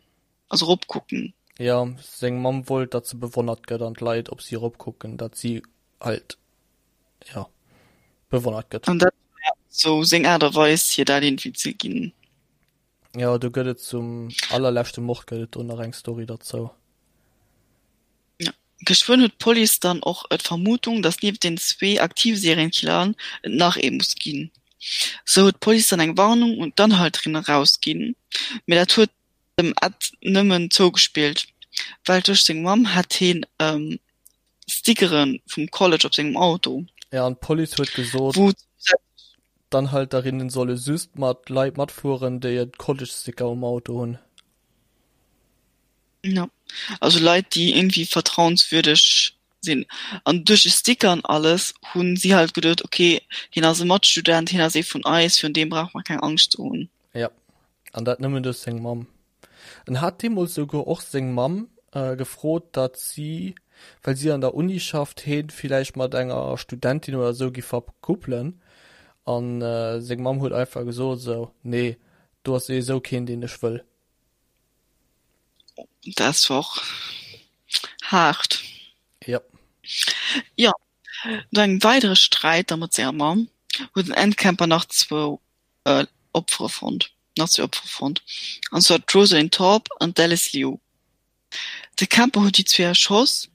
also eropkucken. Ja, seng Mamm wollt, datt se bewonnert gëtt an d'Leit op si eropkucken, datt si halt, ja, bewonnert gëtt. An dat war sou seng Aart a Weis, hir dat iergendwéi ze ginn. Jo, do gëtt et zum allerleschte Mord gëtt et do nach eng Story derzou. Ja. Geschwënn huet d'Police dann och d'Vermutung, datt nieft den zwee aktive Serienkilleren et nach ee muss ginn. Sou huet d'Police dann eng Warnung un d'Anhalterinnen erausginn, mee dat huet dem Ed nëmmen zougespillt, well duerch seng Mamm hat heen Stickere vum College op sengem Auto. Ja, an d'Police huet gesot, d'Anhalterinnen solle just mat Leit matfueren, déi e College-Sticker um Auto hunn. Ja, also Leit, déi irgendwie vertrauenswürdeg sinn. An duerch de Sticker an alles hunn si halt geduet, okay, hien ass e Matstudent, hien ass ee vun eis, virun deem brauche mer keng Angscht ze hunn. Ja, an dat nëmmen duerch seng Mamm. En hat deemools souguer och seng Mamm gefrot, datt si, well si an der Uni schafft, heen villäicht mat enger Studentin oder esou giff verkuppelen. An seng Mamm huet einfach gesot esou, nee, do ass souwisou keen, deen ech wëll. Dat war och haart. Ja. Jo, no engem weidere Sträit da mat senger Mamm huet den Ed Kemper nach zwou Opfere fonnt, nach zwee Opfere fonnt, an zwar d'Rosalind Thorpe an d'Alice Liu. De Kemper huet déi zwee erschoss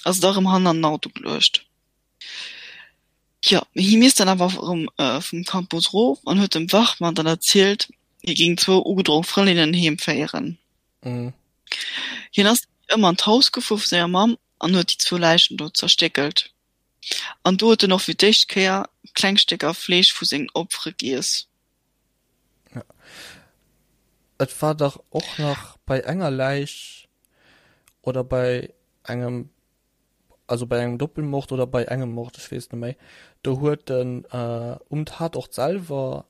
a se da rëm hannen an den Auto geluecht. Jo, mee hie misst dann awer erëm vum Campus erof an huet dem Wachmann dann erzielt, hie géing zwou ugedronk Frëndinnen heem féieren. Hien ass wéi ëmmer an d'Haus gefuer vu senger Mamm an huet déi zwou Läichen do zerstéckelt. An do huet en och fir d'éischt Kéier kleng Stécker Fleesch vu sengen Opfere giess. Et war dach och nach bei enger Läich oder bei engem also bei engem Doppelmord oder bei engem Mord, ech weess net méi, do huet en um Tatort selwer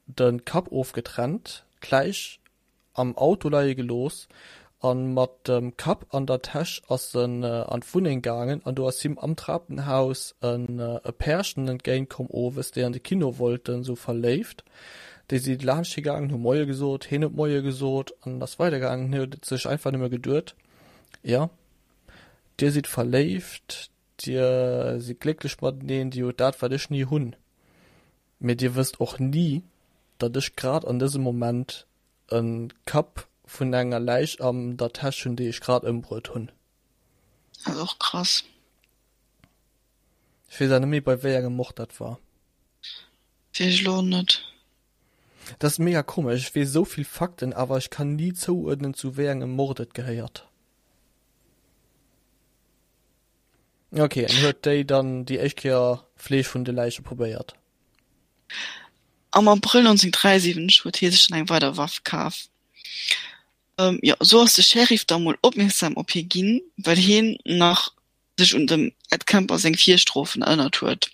de Kapp ofgetrennt, d'Läich am Auto leie gelooss a mat dem Kapp an der Täsch ass en an d'Wunneng gaangen an do ass him am Trapenhaus e Pärchen entgéint komm owes, déi an de Kino wollten, sou verléift. Déi si laanscht hie gaangen, hu Moie gesot, hien huet Moie gesot an ass weidergaangen. Hien huet sech einfach nëmme geduet, jo, Dir sidd verléift, dir sidd glécklech mateneen, dir hutt dat, wat ech ni hunn. Mee dir wësst och ni, datt ech grad an dësem Moment e Kapp vun enger Läich an der Täsch hunn, déi ech grad ëmbruet hunn. Dat ass och krass. Ech weess awer net méi, bei wéi engem Mord dat war. Weess ech elo och net. Dat ass mega komesch, ech weess esou vill Fakten, awer ech kann ni zouuerdnen, zu wéi engem Mord et gehéiert. Ok, en huet déi dann déi éischt Kéier Fleesch vun de Läiche probéiert. Am Abrëll 1973 huet hie sech dann eng weider Waff kaf. Jo, sou ass de Sheriff da mol opmierksam op hie ginn, well hien nach sech un dem Ed Kemper seng Virstrofen erënnert huet.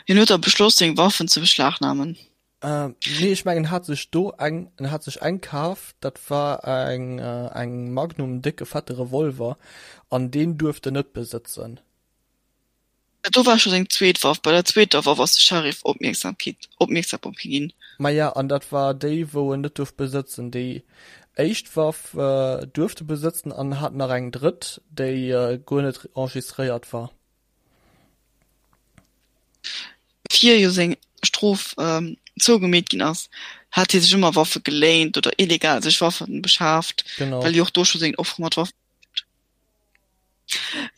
Hien huet da beschloss, seng Waffen ze beschlagnamen. Nee, ech mengen en hat sech do eng, en hat sech eng kaf, dat war eng eng Magnum, en décke fette Revolver, an deen duerft en net besëtzen. Dat do war scho seng zweet Waff. Bei der zweeter Waff ass de Sheriff Opmierksamkeet opmierksam op hie ginn. Maja, an dat war déi wou en net duerft besëtzen. Déi éischt Waff duerft e besëtzen an en hat nach eng drëtt, déi guer net enregistréiert war. Fir jo seng Strof zougemeet ginn ass, hat hie sech ëmmer Waffe geléint oder illegal sech Waffe beschaaft, well hie och do scho seng Offere mat Waffen.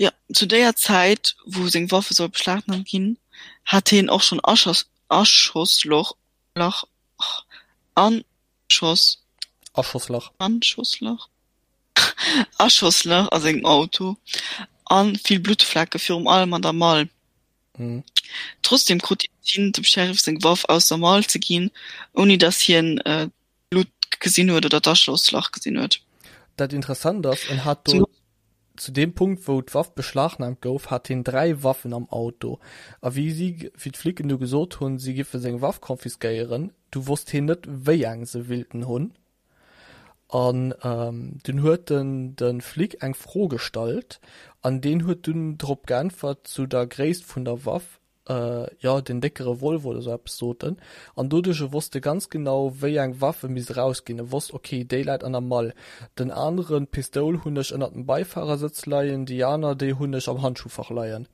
Jo, zu déier Zäit, wou seng Waffe soll beschlagnahmt ginn, hat hien och schonn Aschoss, Aschosslach, Lach, Anschoss, Aschosslach. Anschosslach? Aschosslach a sengem Auto a vill Bluttflecke, virum allem an der Mall. Trotzdeem krut hien et hin, dem Sheriff seng Waff aus der Mall ze ginn, ouni datt hien d'Blutt gesinn huet oder d'Aschosslach gesinn huet. Dat Interessant ass, en hat do zu deem Punkt, wou d'Waff beschlagnahmt gouf, hat hien 3 Waffen am Auto. A wéi si, wéi d'Flicken du gesot hunn, si giffe seng Waff confisquéieren, du wosst hien net, wéi eng se willten hunn. An dunn huet en de Flic eng Fro gestallt an deen huet dunn drop geäntwert zu der Gréisst vun der Waff, jo den décke Revolver oder sou eppes sot en. An doduerch wosst e ganz genau wéi eng Waff e misst erausginn. E wosst ok déi läit an der Mall, den aneren, d'Pistoul hunn ech ënnert dem Beifahrersëtz leien, déi aner déi hunn ech am Handschuhfach leien.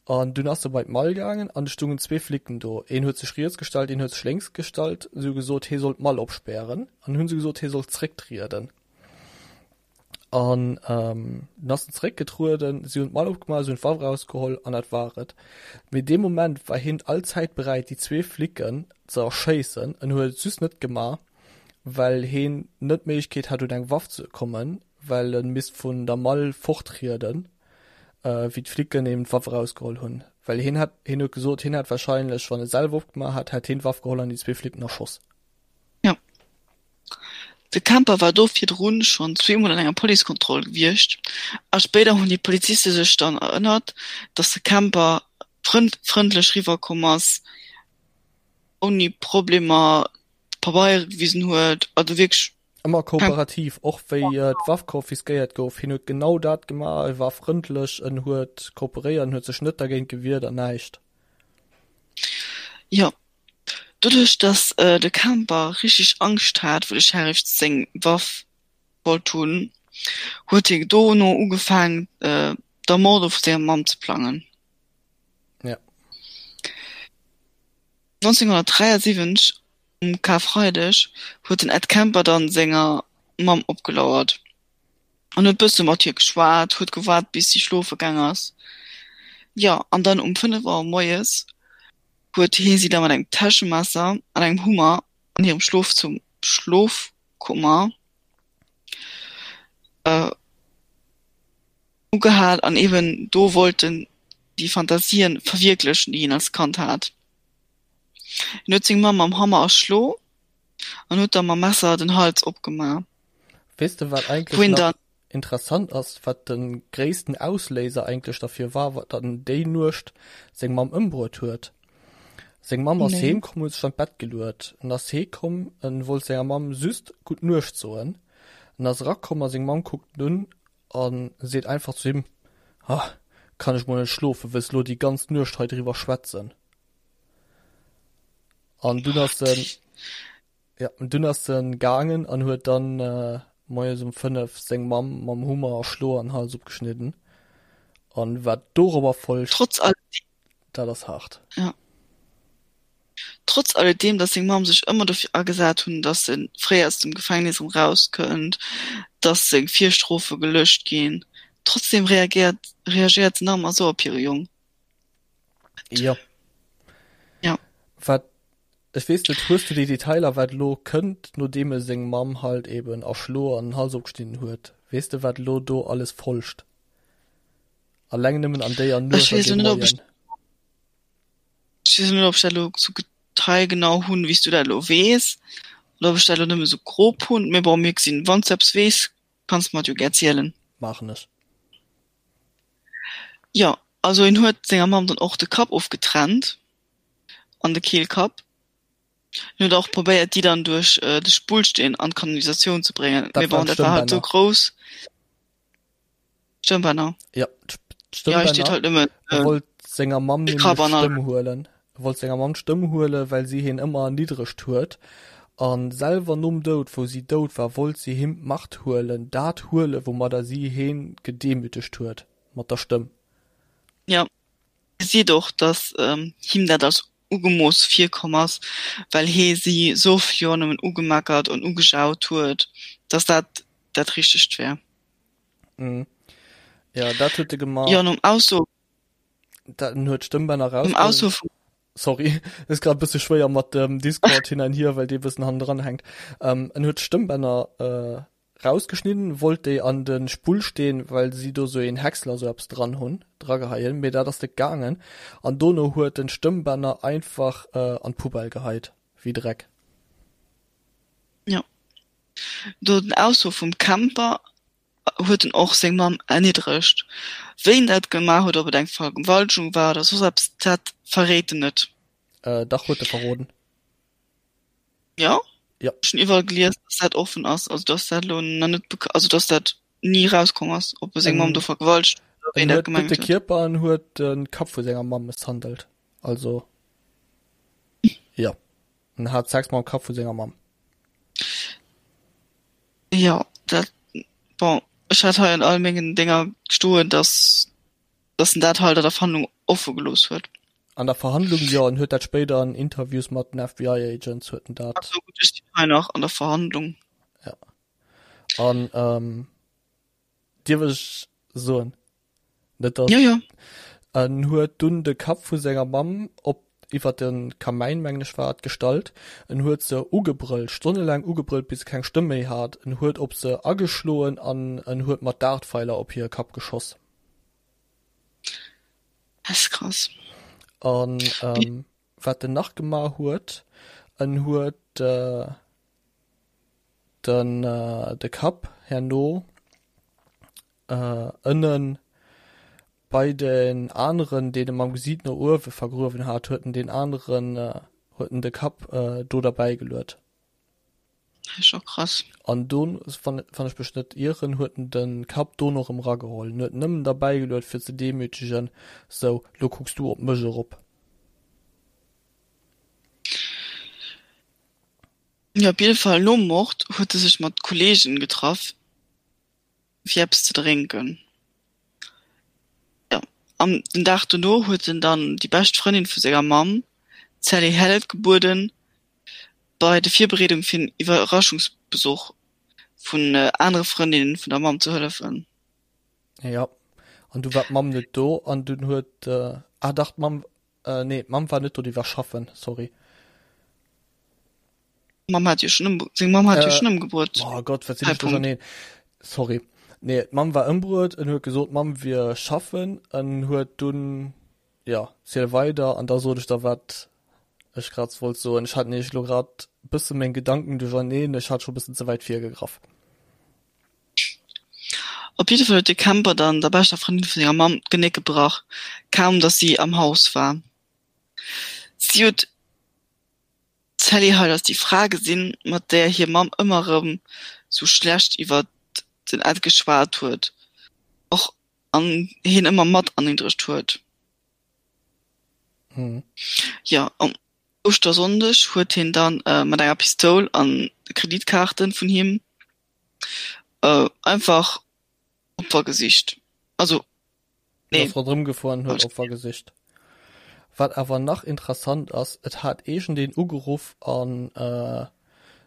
An dunn ass e bei d'Mall gaangen an et stungen zwee Flicken do. Een huet sech riets gestallt, een huet sech lénks gestallt. Si hu gesot, hie soll d'Mall opspären. An hunn se gesot, hie soll zrécktrieden. An dunn ass en zeréckgetrueden, si hunn d'Mall opgemaach, si hunn d'Waff erausgeholl an dat war et. Mee dee Moment war hien allzäit beräit déi zwee Flicken ze erschéissen. En huet et just net gemaach, well heen net d'Méiglechkeet hat un eng Waff ze kommen, well e misst vun der Mall fortrieden, wéi d'Flicken eben d'Waff erausgeholl hunn. Well hien hätt, hien huet gesot, hien hätt warscheinlech, wann e selwer opgemaach hätt, hätt hien d'Waff geholl an déi zwee Flicken erschoss. Jo. De Kemper war do virdrun schonn zweemol an enger Policekontroll gewiescht a spéider hunn déi Poliziste sech dann erënnert, datt de Kemper frëndlech riwwer komm ass, ouni Problemer d'Pabeiere gewisen huet, also wierklech. Ëmmer kooperativ, och wéi d'Waff konfiskéiert gouf, hien huet genau dat gemaach, e war frëndlech, en huet kooperéiert, en huet sech net dergéint gewiert an näischt. Jo, Doduerch dass de Kemper richteg Angscht hat wou de Sheriff seng Waff wollt hunn, huet hie dono ugefaangen d'Ermordung vu senger Mamm ze plangen. Ja. 1973 um Karfreideg huet den Ed Kemper dann senger Mamm opgelauert an huet bësse mat hir geschwat, huet gewaart bis si schlofe gaang ass. Jo an dann um 5 Auer moies huet hie si da mat engem Täschemesser an engem Hummer an hirem Schlof zum Schlofkummer ugehal an eben do wollt en déi Fantasien verwierklechen, déi hien als Kand hat. Hien huet seng Mamm mam Hammer erschlo an huet da mam Messer den Hals opgemaach. Weess de wat eigentlech nach Interessant ass, wat de gréissten Ausléiser eigentlech derfir war, datt en déi Nuecht seng Mamm ëmbruet huet. Seng Mamm ass heem komm, huet sech an d'Bett geluet. En ass hee komm, en wollt senger Mamm just gutt Nuecht soen. En ass erakomm a seng Mamm kuckt en un a seet einfach zu him, Ah, kann ech mol net schlofen, wëlls elo déi ganz Nuecht hei driwwer schwätzen? An dunn ass en. Ja, an dunn ass en gaangen an huet dann moies um 5 seng Mamm mam Hummer erschloen an Hals opgeschnidden. An wat dorobber folgt, Trotz alledem. dat ass haart. Ja. Trotz alledem, dass seng Mamm sech ëmmer dofir agesat hunn, dass en fréi aus dem Gefängnis erëm rauskënnt, dass seng Virstrofe gelöscht ginn, trotzdem reagiert reagéiert se nach ëmmer esou op hire Jong. Jo. Ja. Wat Ech weess net, hues du déi Detailer wat elo kënnt nodeem e seng Mamm halt eben erschloe an den Hals opgeschnidden huet? Weess de wat elo do alles folgt? Alleng nëmmen an déier Ech Nuecht an weess deem elo net ob ech Moien. Ech weess elo net ob ech dat elo sou detailgenau hunn wéi s du dat elo weess oder ob ech dat elo nëmme sou grob hunn, mee bon mir gesinn. Wann s du eppes weess kanns de mer et jo gär zielen. Maachen ech. Jo, also en huet senger Mamm dann och de Kapp ofgetrennt. an de Keelkapp. En huet och probéiert déi dann duerch de Spullsteen an d'Kanalisatioun ze bréngen, mee bon, dat war halt sou grouss. Stëmmbänner. Ja, Ja, hei steet halt nëmmen E wollt senger Mamm nämlech d'Stëmm huelen. E wollt senger Mamm d'Stëmm huelen, well si hien ëmmer erniddregt huet. A selwer nom Doud, wou si dout war, wollt si him d'Macht huelen, dat huelen, woumadder si hien gedemütegt huet, mat der Stëmm. Ja. Gesäit och, dass him dat als ugemooss virkomm ass, well hee si sou vill Joer nëmmen ugemeckert an ugejaut huet, dass dat dat Richtegt wär. Mhm. Ja, dat huet e gemaach. Jo, nom Ausso. Dat, en huet d'Stëmmbänner Nom Ausso vum. Sorry, ass grad e bësse schwéier mat dem Discord hin an hier, well dee bëssen hannendran hänkt. Ähm, en huet d'Stëmmbänner äh, Rausgeschnidden, wollt déi an den Spullsteen, well si do sou een Häcksler sou eppes dran hun, drageheien, mee dat ass net gaangen an dono huet en d'Stëmmbänner einfach an d'Poubelle geheit, wéi Dreck. Jo, do den Ausso vum Kemper huet en och seng Mamm erniddregt. Wéi en dat gemaach huet, ob et eng Vergewaltegung war oder soss eppes, dat verréit en net. Dach huet e verroden. Ja? Ja. Ech hunn iwwerall gelies, dass dat offen ass, also dass dat elo nach net beka also dass dat ni rauskomm ass, ob e seng Mamm do vergewaltegt huet oder wéi En en dat huet net gemengt de huet. Kierper, en huet de Kapp vu senger Mamm mësshandelt. Also jo, en hat Sex mam Kapp vu senger Mamm. Jo, dat, bon, ech hat hei an all mengen Dénger stoen, dass dass en dat halt an der Verhandlung offe gelooss huet. An der Verhandlung jo, en huet dat spéider an Interviews mat den FBI Agents huet en dat. Ach sou, gutt, ech sinn hei nach an der Verhandlung. Ja. An ähm. Dierf ech soen? Net dass. Jo, jo. En huet dunn de Kapp vu senger Mamm op iwwer de Kamäin, mengen ech war et, gestallt. En huet se ugebrëllt, stonnelaang ugebrëllt, bis se keng Stëmm méi hat. En huet op se ageschloen an en huet mat Dartpfeiler op hire Kapp geschoss. Dat ass krass. An wat en nach gemaach huet, en huet den de Kapp herno ënnen bei den aneren, deen e mam Gesiit no uewe vergruewen hat, huet en deen aneren, huet en de Kapp do derbäi geluet. Dat ass scho krass. An do, wann ech mech net ieren, huet en de Kapp do nach erëm erageholl. En huet en nëmmen derbäi geluet fir ze demütegen, sou, lo kucks du op mech erop. Jo, op jidde Fall nom Mord huet e sech mat Kolleegen getraff. fir eppes ze drénken. Jo, an den Dag dono huet en dann déi bescht Frëndin vu senger Mamm, d'Sally Hallett, gebueden, bei de Virbereedung fir en Iwwerraschungsbesuch vun anere Frëndinnen vun der Mamm ze hëllefen. Jo, an du war d'Mamm net do an dunn huet, ah dach, d'Mamm, nee, d'Mamm war net do, déi war schaffen, sorry. Mamm hat jo schon seng Mamm hat jo schon ëmgebruet. Oh Gott, wat sinn ech duercherneen. Sorry. Nee, d'Mamm war ëmbruet, en huet gesot, d'Mamm wier schaffen, en huet dunn, ja, ziel weider an da sot ech der wat ech grad wollt soen. Ech hat nämlech elo grad bësse meng Gedanken duercherneen, ech hat scho bëssen ze wäit virgegraff. Op jidde Fall huet de Kemper dann der beschter Frëndin vu senger Mamm d'Genéck gebrach, kaum datt si am Haus war. Si huet D'Sally Hall ass déi Fra gesinn, mat där hir Mamm ëmmer erëm sou schlecht iwwer den Ed geschwat huet och an hien ëmmer mat erniddregt huet. Jo, um Ouschtersonndeg huet hien dann mat enger Pistoul an Kreditkaarten vun him einfach Opfer gesicht. Also Nee. Ass ronderëm gefuer an huet Opfer gesicht. Wat awer nach interessant ass, et hat iergendeen ugeruff an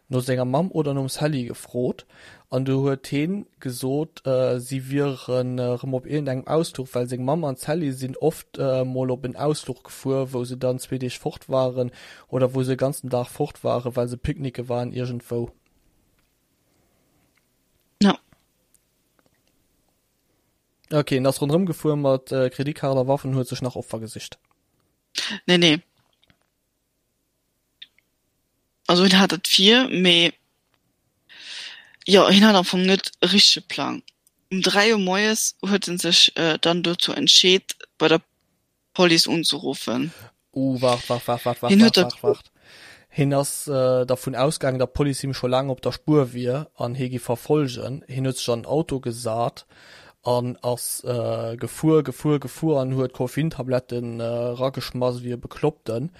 no senger Mamm oder nom Sally gefrot an du huet heen gesot, si wieren erëm op iergendengem Ausfluch, well seng Mamm an d'Sally sinn oft mol op en Ausfluch gefuer, wou se dann zwee Deeg fort waren oder wou se e ganzen Dag fort waren, well se picknicke waren iergendwou. Ja. Ok, en ass ronderëm gefuer mat Kreditkaart a Waffen, huet sech nach Opfer gesicht. Nee, nee. Also hien hat et vir, mee jo, hien hat am Fong net e richtege Plang. Um 3 Auer moies huet en sech dann dozou entscheet, bei der Police unzeruffen. Uh, waart, waart, waart, waart, waart, waart, waart, waart. Hien ass dervun ausgaangen, datt d'Police him scho laang op der Spuer wier an hie giff verfollegen. Hien huet sech an den Auto gesat an ass gefuer, gefuer, gefuer an huet Koffeintabletten erageschmass ewéi e Bekloppten,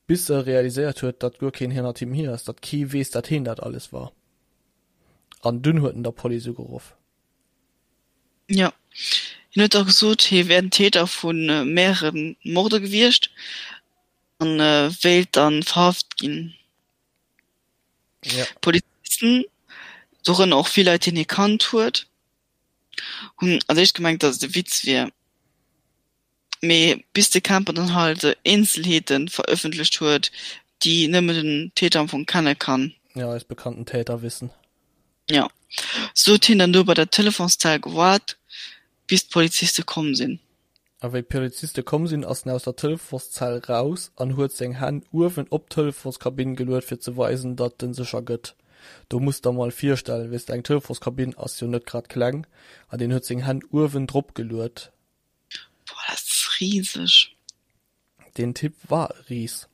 bis e realiséiert huet, datt guer keen hannert him hier ass, datt kee weess, datt hien dat alles war. An dunn huet en der Police ugeruff. Jo, hien huet da gesot, hie wär den Täter vu mehrere Morde gewiescht a wéilt da verhaft ginn. Ja. D'Polizisten, dorënner och vill Leit, déi hie kannt huet, hunn als éischt gemengt, datt et e Witz wier. Mee bis de Kemper dann halt Eenzelheete verëffentlecht huet, déi nëmmen den Täter am Fong kenne kann. Ja, eis bekannten Täterwissen. Jo. Sou huet hien dann do bei der Telefonszell gewaart, bis d'Poliziste komm sinn. A wéi d'Poliziste komm sinn, ass en aus der Telefonszell raus an huet seng Hänn uewen op d'Telefonskabinn geluet, fir ze weisen, datt en sech ergëtt. Do muss der mol virstellen, weess de, eng Telefonskabinn ass jo net grad kleng, an deen huet seng Hänn uewen drop geluet. Boah, dat ass riseg. Deen Typ war e Ris.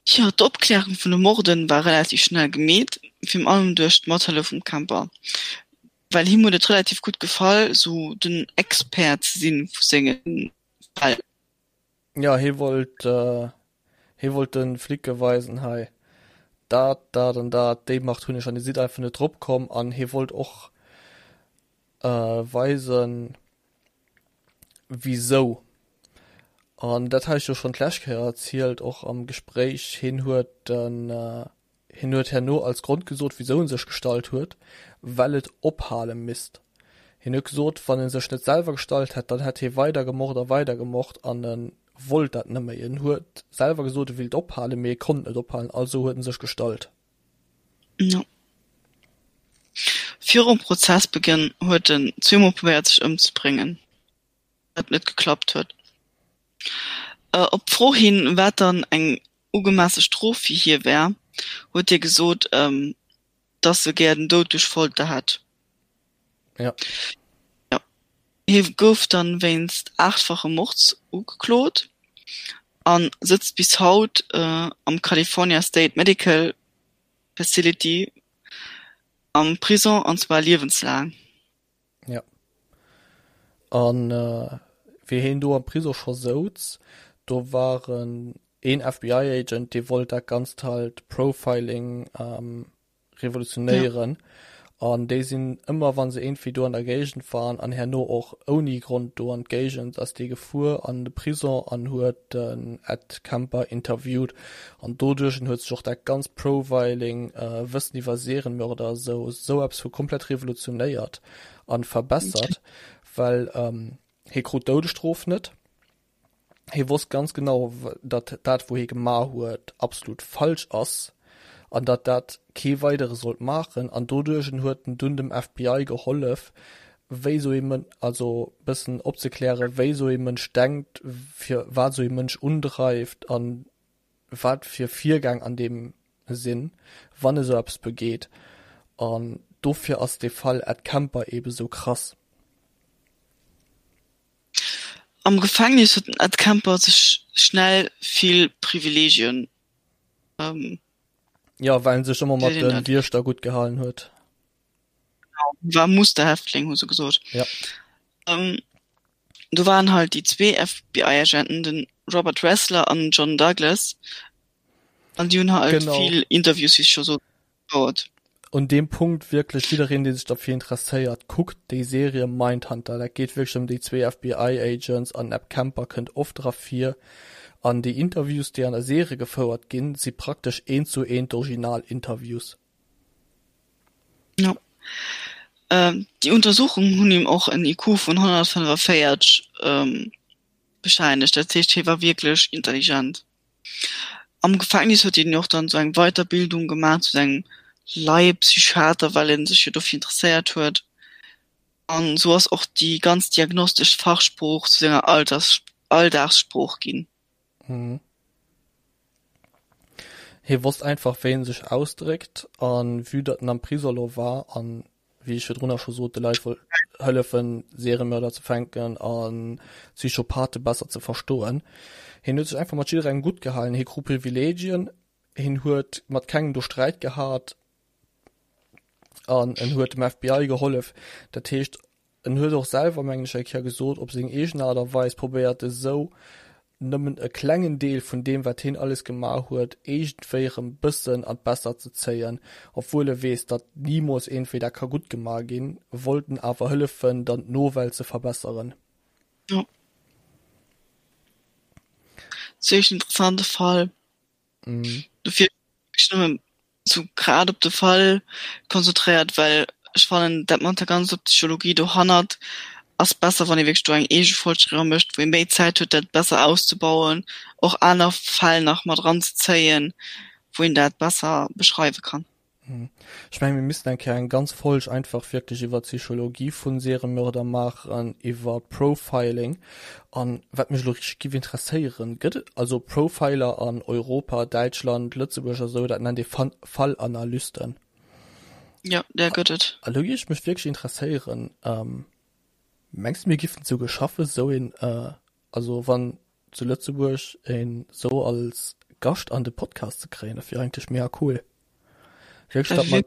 Jo, d'Opklärung vun de Morden war relativ schnell gemeet, virun allem duerch d'Mathëllef vum Kemper, well him huet et relativ gutt gefall, sou den Expert ze si vu senge Fäll. Jo, hie wollt, hie wollt de Flicke weisen, hei, dat, dat an dat, déi Macht hunn ech an dir sidd einfach net drop komm. An hie wollt och weisen, wisou. An dat hat ech jo schonn d'lescht Kéier erzielt, och am Gespréich, hien huet den. Hien huet herno als Grond gesot, wisou en sech gestallt huet, well et ophale misst. Hien huet gesot, wann en sech net selwer gestallt hätt, dann hätt hie weider gemort a weider gemort an e wollt dat net méi. En huet selwer gesot, e willt ophalen, mee e konnt net ophalen, also huet en sech gestallt. Jo. Virum Prozessbegënn huet en zweemol probéiert sech ëmzebréngen. wat net geklappt huet. Op d'Fro hin, wat dann eng ugemesse Strof fir hie wär, huet hie gesot, datt e gär den Doud duerch Folter hätt. Ja. Ja. Hie gouf dann wéinst aachtfache Mords ugeklot a sëtzt bis haut am California State Medical Facility am Prison, an zwar liewenslaang. Ja. An wéi heen do am Prisong scho souz, do war en een FBI-Agent, dee wollt dat Ganzt halt Profiling revolutionéieren. An déi sinn ëmmer, wa se iergendwéi do an der Géigend waren, an herno och ouni Grond do an d'Géigend, ass dee gefuer an de Prisong an huet den Ed Kemper interviewt. An doduerch huet sech och dat ganzt Profiling, Wëssen iwwer Serienmörder esou, esou eppes vu komplett revolutionéiert an verbessert, well hie krut d'Doudesstrof net. Hie wosst ganz genau, datt dat wou hie gemaach huet absolut falsch ass an datt dat kee weidere sollt maachen. An doduerch huet en dunn dem FBI gehollef, wéi esou ee Mën-, also bëssen opzeklären, wéi esou ee Mënsch denkt, fir wat esou ee Mënsch undreift an wat fir Virgäng an deem sinn, wann e sou eppes begeet. An dofir ass dee Fall Ed Kemper eebe sou krass. Am Gefängnis huet den Ed Kemper sech schnell vill Privileegien. Jo, well en sech ëmmer mat de Wiechter gutt gehalen huet. War Musterhäftling, hu se gesot. Ja. Ähm, do waren halt déi zwee FBI-Agenten, den Robert Ressler an John Douglas. An déi hunn halt Genau. vill Interviews, wéi ech scho sot, gefouert. Un deem Punkt wierklech jiddereen, dee sech derfir interesséiert, kuckt déi Serie Mindhunter. Dat geet wierklech ëm déi zwee FBI-Agents an Ed Kemper kënnt oft dra vir. An déi Interviews, déi an der Serie gefouert ginn, si praktesch eent zu eent d'Original-Interviews. Jo. Déi Untersuchungen hunn him och en IQ vun 145 bescheinegt, dat heescht hie war wierklech intelligent. Am Gefängnis huet hien och dann esou eng Weiterbildung gemaach zu engem Laiepsychiater, well en sech jo dofir interesséiert huet. An esou ass och déi ganz diagnostesch Fachsprooch zu senger Alldagssprooch ginn. Mhm. Hie wosst einfach wéi en sech ausdréckt an vue datt en am Prisong lo war an wéi ech virdrunner scho sot de Leit wollt hëllefen Seriemörder ze fänken an Psychopathe besser ze verstoen. Hien huet sech einfach mat jidderengem gutt gehalen, hie krut Privilegien, hien huet mat kengem do Sträit gehat an en huet dem FBI gehollef. Dat heescht En huet och selwer, mengen ech, eng Kéier gesot, op seng eegen Aart a Weis probéiert esou nëmmen e klengen Deel vun deem, wat hien alles gemaach huet, iergendwéi erëm bëssen an d'Bessert ze zéien. Obwuel e weess, datt nimools iergendwéi dat ka gutt gemaach ginn, wollt en awer hëllefen, dann d'Nowelt ze verbesseren. Jo. Zimmlech interessante Fall. Dofir ech nëmmen sou grad op de Fall konzentréiert, well ech fannen dat mat der ganzer Psychologie dohannert ass besser wann ee wierklech do eng eege Folg driwwer mécht, wou ee méi Zäit huet dat besser auszebauen, och aner Fäll nach mat eranzezéien, wou een dat besser beschreiwe kann. Ech mengen, mir missten eng Kéier eng ganz Folg einfach wierklech iwwer d'Psychologie vun Seriemörder maachen, iwwer Profiling. An wat mech elo richteg giff interesséieren, gëtt et also Profiler an Europa, Däitschland, Lëtzebuerg a sou, dat nennt ee Fallanalysten. Jo, där gëtt et. A lo géif mech wierklech interesséieren, mengs de mir giffen souguer schaffen, sou een, also wann zu Lëtzebuerg een sou als Gascht an de Podcast ze kréien, dat wier eigentlech mega cool. Wierklech, datt mer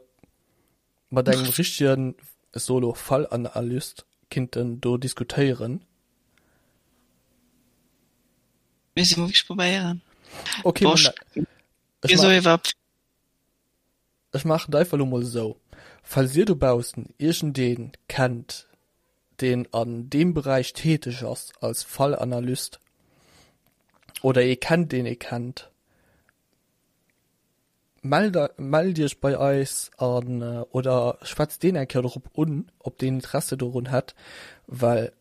mat engem richtegen, ech soe lo Fallanalyst kinnten do diskutéieren. Misste mer wierklech probéieren. Okay, Boah, ech ech ma Ech maachen et einfach elo mol esou, Falls dir dobaussen iergendeen kennt, deen an deem Beräich täteg ass als Fallanalyst oder ee kennt, deen ee kennt. Mellt mellt iech bei eis an oder schwätzt deen eng Kéier dorop un, ob deen Interesse dorun hätt, well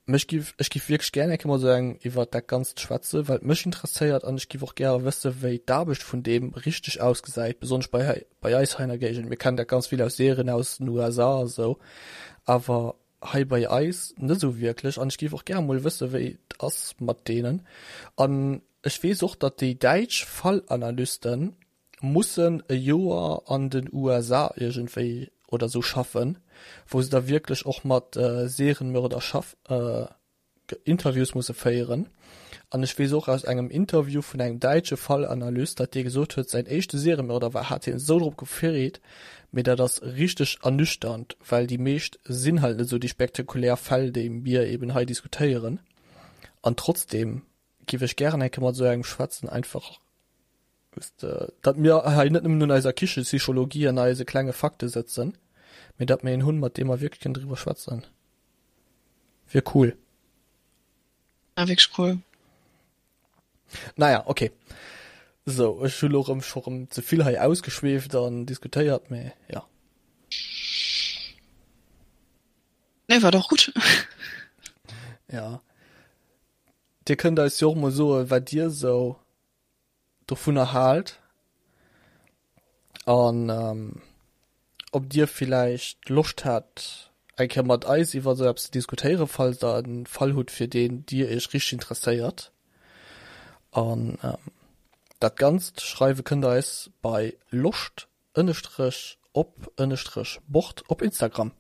mech giff ech giff wierklech gär eng Kéier mat esou engem iwwert dat Ganzt schwätzen, well et mech interesséiert an ech giff och gäre wësse wéi d'Aarbecht vun deem richteg ausgesäit, besonnesch bei hei bei eis hei an der Géigend. Mir kennen dat ganz vill aus Serien aus den USA a sou, awer hei bei eis net esou wierklech an ech géif och gäre mol wësse wéi et ass mat deenen. An ech weess och, datt déi däitsch Fallanalyste mussen e Joer an den USA iergendwéi oder sou schaffen, wou se da wierklech och mat Serienmörder schaff Interviews musse féieren. An ech weess och aus engem Interview vun engem däitsche Fallanalyst, datt dee gesot huet, säin éischte Seriemörder war, hat hien esou drop gefreet, mee dat ass richteg ernüchternd, well déi meescht sinn halt net esou déi spektakulär Fäll, déi mir eben hei diskutéieren. An trotzdeem giff ech gären eng Kéier mat esou engem schwätzen, einfach datt mir hei net nëmmen un eiser Kichepsychologie an eise klenge Fakte sëtzen, mee datt mir een hunn, mat deem mer wierklech kënnen driwwer schwätzen. Wier cool. Ja, wierklech cool. Naja, okay. So, ech hu lo rëm scho rëm ze vill hei ausgeschweeft an diskutéiert, mee ja. Nee, war doch gutt. Ja. Dir kënnt eis jo och mol soen, wat dir sou dovunner haalt an ob dir villäicht Loscht hätt eng Kéier mat eis iwwer esou eppes ze diskutéieren, falls der en Fall hutt fir deen dir iech richteg interesséiert. An dat Ganzt schreiwe kënnt der eis bei loscht ënnestrech op ënnestrech bord op Instagram.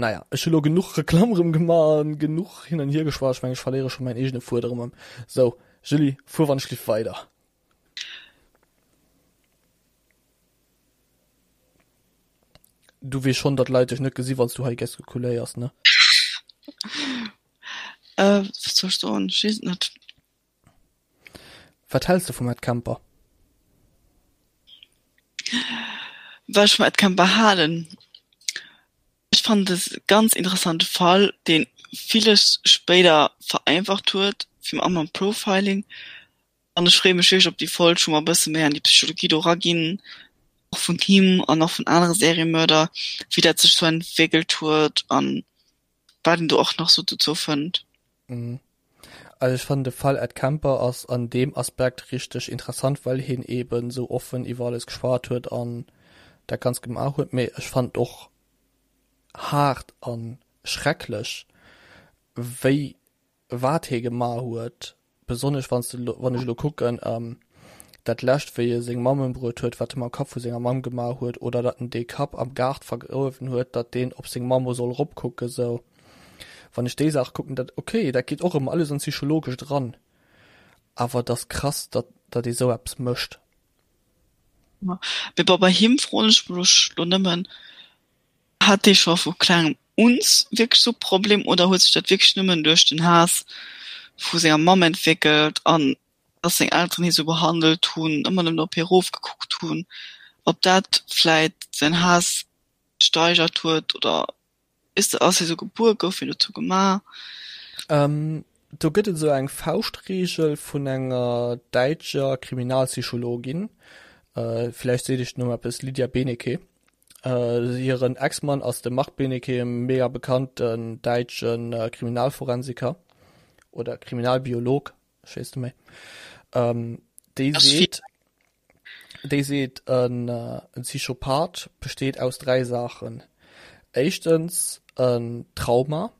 Naja, ech hu lo genuch Reklamm rëm gemaach an genuch hin an hier geschwat. Ech mengen, ech verléiere scho mäin eegene Fuedem erëm. Sou, Julie, fuer wann ech lift weider. Du weess schonn, datt Leit dech net gesi wann s du hei gestikuléiers, ne? Äh, wat soll ech soen? Ech weess et net. Wat häls de vum Ed Kemper? Wat ech vum Ed Kemper halen? Ech fannen et e ganz interessante Fall, dee villes spéider vereinfacht huet, virun allem am Profiling. An ech freeë mech wierklech op déi Folg, wou mer e bësse méi an déi Psychologie do eraginn, och vun him an och vun anere Seriemörder, wéi dat sech sou entwéckelt huet an wat een do och nach sou dozou fënnt. Also ech fannen de Fall Ed Kemper ass an deem Aspekt richteg interessant, well hien eben sou offen iwwer alles geschwat huet an dat Ganzt gemaach huet, mee ech fannen et och haart an schrecklech wéi wat hie gemaach huet, besonnesch wanns de wann ech elo kucken dat lescht wéi e seng Mamm ëmbruet huet, wat e mam Kapp vu senger Mamm gemaach huet oder datt en dee Kapp am Gaart vergruewen huet, datt deen op seng Mamm soll eropkucken sou. Wann ech déi Saach kucken, dat ok, dat geet och ëm alles an d'Psychologescht eran, awer et ass krass, datt datt ee sou eppes mécht. Mee bon, bei him froen ech mech lo nëmmen, Hat dee scho vu klengem un wierklech sou Problem oder huet sech dat wierklech nëmmen duerch den Haass vu senger Mamm entwéckelt an dass seng Elteren hie sou behandelt hunn, ëmmer nëmmen op hie rofgekuckt hunn, ob dat vläit säin Haass gesteigert huet oder weess de, ass hie sou gebuer, gouf hien dozou gemaach? Do gëtt et esou eng Fauschtreegel vun enger däitscher Kriminalpsychologin, villäicht seet iech den Numm eppes, Lydia Benecke. Hiren Ex-Mann ass de Marc Benecke, e mega bekannten däitsche Kriminalforensiker oder Kriminalbiolog, ech weess net méi. Déi seet, déi seet en Psychopath besteet aus 3 Saachen. Éischtens en Trauma,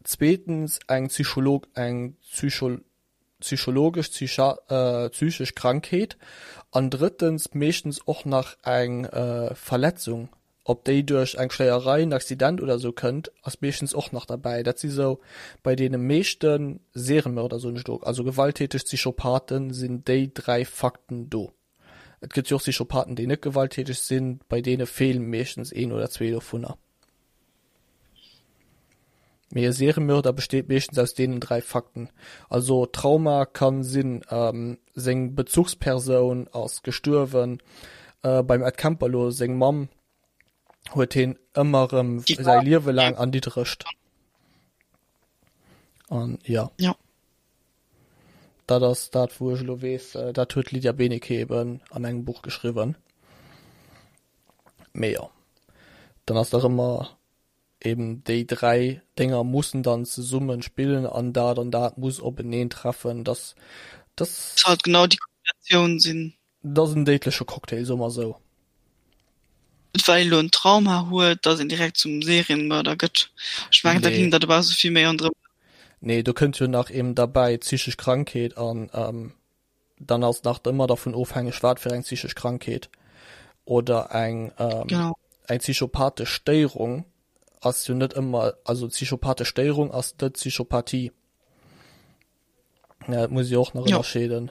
zweetens eng Psycholog eng Psycho psychologesch psychesch Krankheet an drëttens meeschtens och nach eng Verletzung, ob déi duerch eng Schléierei, en Accident oder sou kënnt, ass meeschtens och nach derbäi. Dat si sou bei deene meeschte Seriemörder, soen ech elo, also gewalttäteg Psychopathen, sinn déi 3 Fakten do. Et gëtt jo och Psychopathen, déi net gewalttäteg sinn, bei deene feelen meeschtens een oder zwee dovunner. Mee e Seriemörder besteet meeschtens aus deenen 3 Fakten. Also Trauma kann sinn, seng Bezuchspersoun ass gestuerwen, beim Ed Kemper lo seng Mamm huet heen ëmmer erëm säi Liewe laang erniddregt. An jo. Jo. Dat ass dat wou ech elo weess, dat huet d'Lydia Benecke eben an engem Buch geschriwwen. Mee jo, dann ass nach ëmmer eben déi 3 Dénger mussen dann zesummen spillen an dat an dat muss openeen treffen, dass dass. Muss halt genau déi Kombinatioun sinn. Dat ass en déidleche Cocktail, soe mer esou. Net well een elo en Trauma huet, dass een direkt zum Serienmörder gëtt. Ech mengen, da Nee. ging dat e bausse vill méi ronderëm. Nee, do kënnt jo nach eben derbäi psychesch Krankheet an dann ass nach ëmmer dervun ofhängeg, wat fir eng psychesch Krankheet oder eng Genau. eng psychopathesch Stéierung ass jo net ëmmer, also psychopathesch Stéierung ass net Psychopathie. Ja, dat muss ee och nach Ja. ënnerscheeden.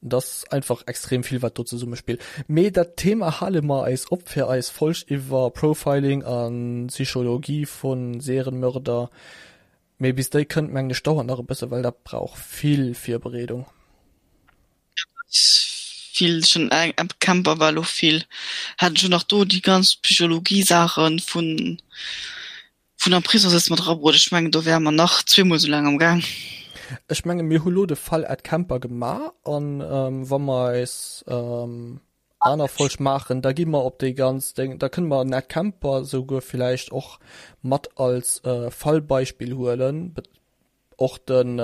Dat ass einfach extrem vill, wat do zesummespillt. Mee dat Thema hale mer eis op fir eis Folg iwwer Profiling a Psychologie vu Serienmörder. Mee bis déi kënnt, mengen ech, dauert nach e bësse, well dat brauch vill Virbereedung. Vill schon eng Ed Kemper war lo vill hat schon nach do déi ganz Psychologie-Saachen vun vun am Prisong sëtze mat erabruet. Ech mengen do wäre mer nach zweemol sou laang am Gaang. Ech menge mir hu lo de Fall Ed Kemper gemaach an wa mer eis aner Folg maachen, da gi mer op déi ganz Déng, da kënne mer den Ed Kemper souguer villäicht och mat als Fallbeispill huelen, och den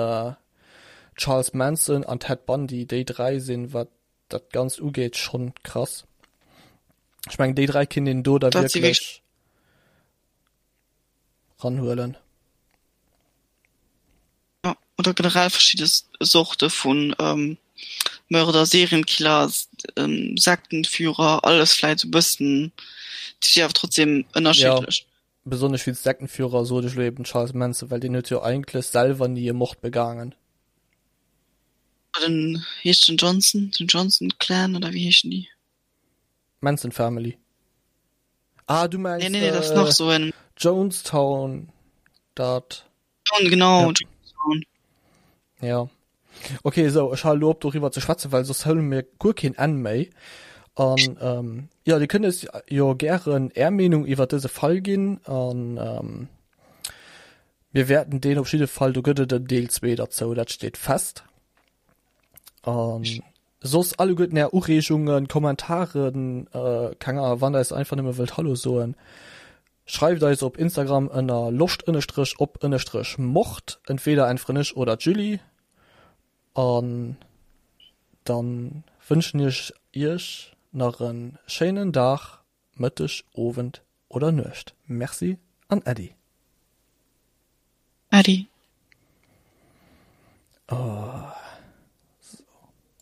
Charles Manson an Ted Bundy, déi 3 sinn, wat dat Ganzt ugeet, schonn krass. Ech mengen déi 3 kinnt een do da wierklech ranhuelen. Ja, oder generell verschidde Sorte vun ähm, Mörder, Serienkiller, ähm, Sektenführer, alles vläit sou bëssen, déi si awer trotzdem ënnerschiddlech. Ja, besonnesch wéinst Sektenführer sot ech lo eben Charles Manson, well deen huet jo eigentlech selwer ni e Mord begaangen. Den heescht den Johnson, den Johnson Clan oder wéi heeschen déi? Manson Family. Ah, du Nee, mengs nee, nee, dat ass nach sou en. Jonestown, dat. Jonestown, genau, Ja. Jonestown. Ja. Okay, sou, ech hale lo op doriwwer ze schwätzen, well soss huele mir guer keen Enn méi. An ähm, ja, Dir kënnt eis jo gären Är Meenung iwwer dëse Fall ginn an ähm, mir wäerten deen op jidde Fall, do gëtt et en Deel 2 derzou, dat steet fest. An soss alleguerten Är Ureegungen, Kommentaren, äh, keng Ahnung, wann Der eis einfach nëmme wëllt Hallo soen, schreift eis op Instagram ënner loscht ënnestrech op ënnestrech mord, entweder äntweren ech oder d'Julie. An dann wënschen ech Iech nach en schéinen Dag, Mëtteg, Owend oder Nuecht. Merci an Äddi. Äddi. Oh.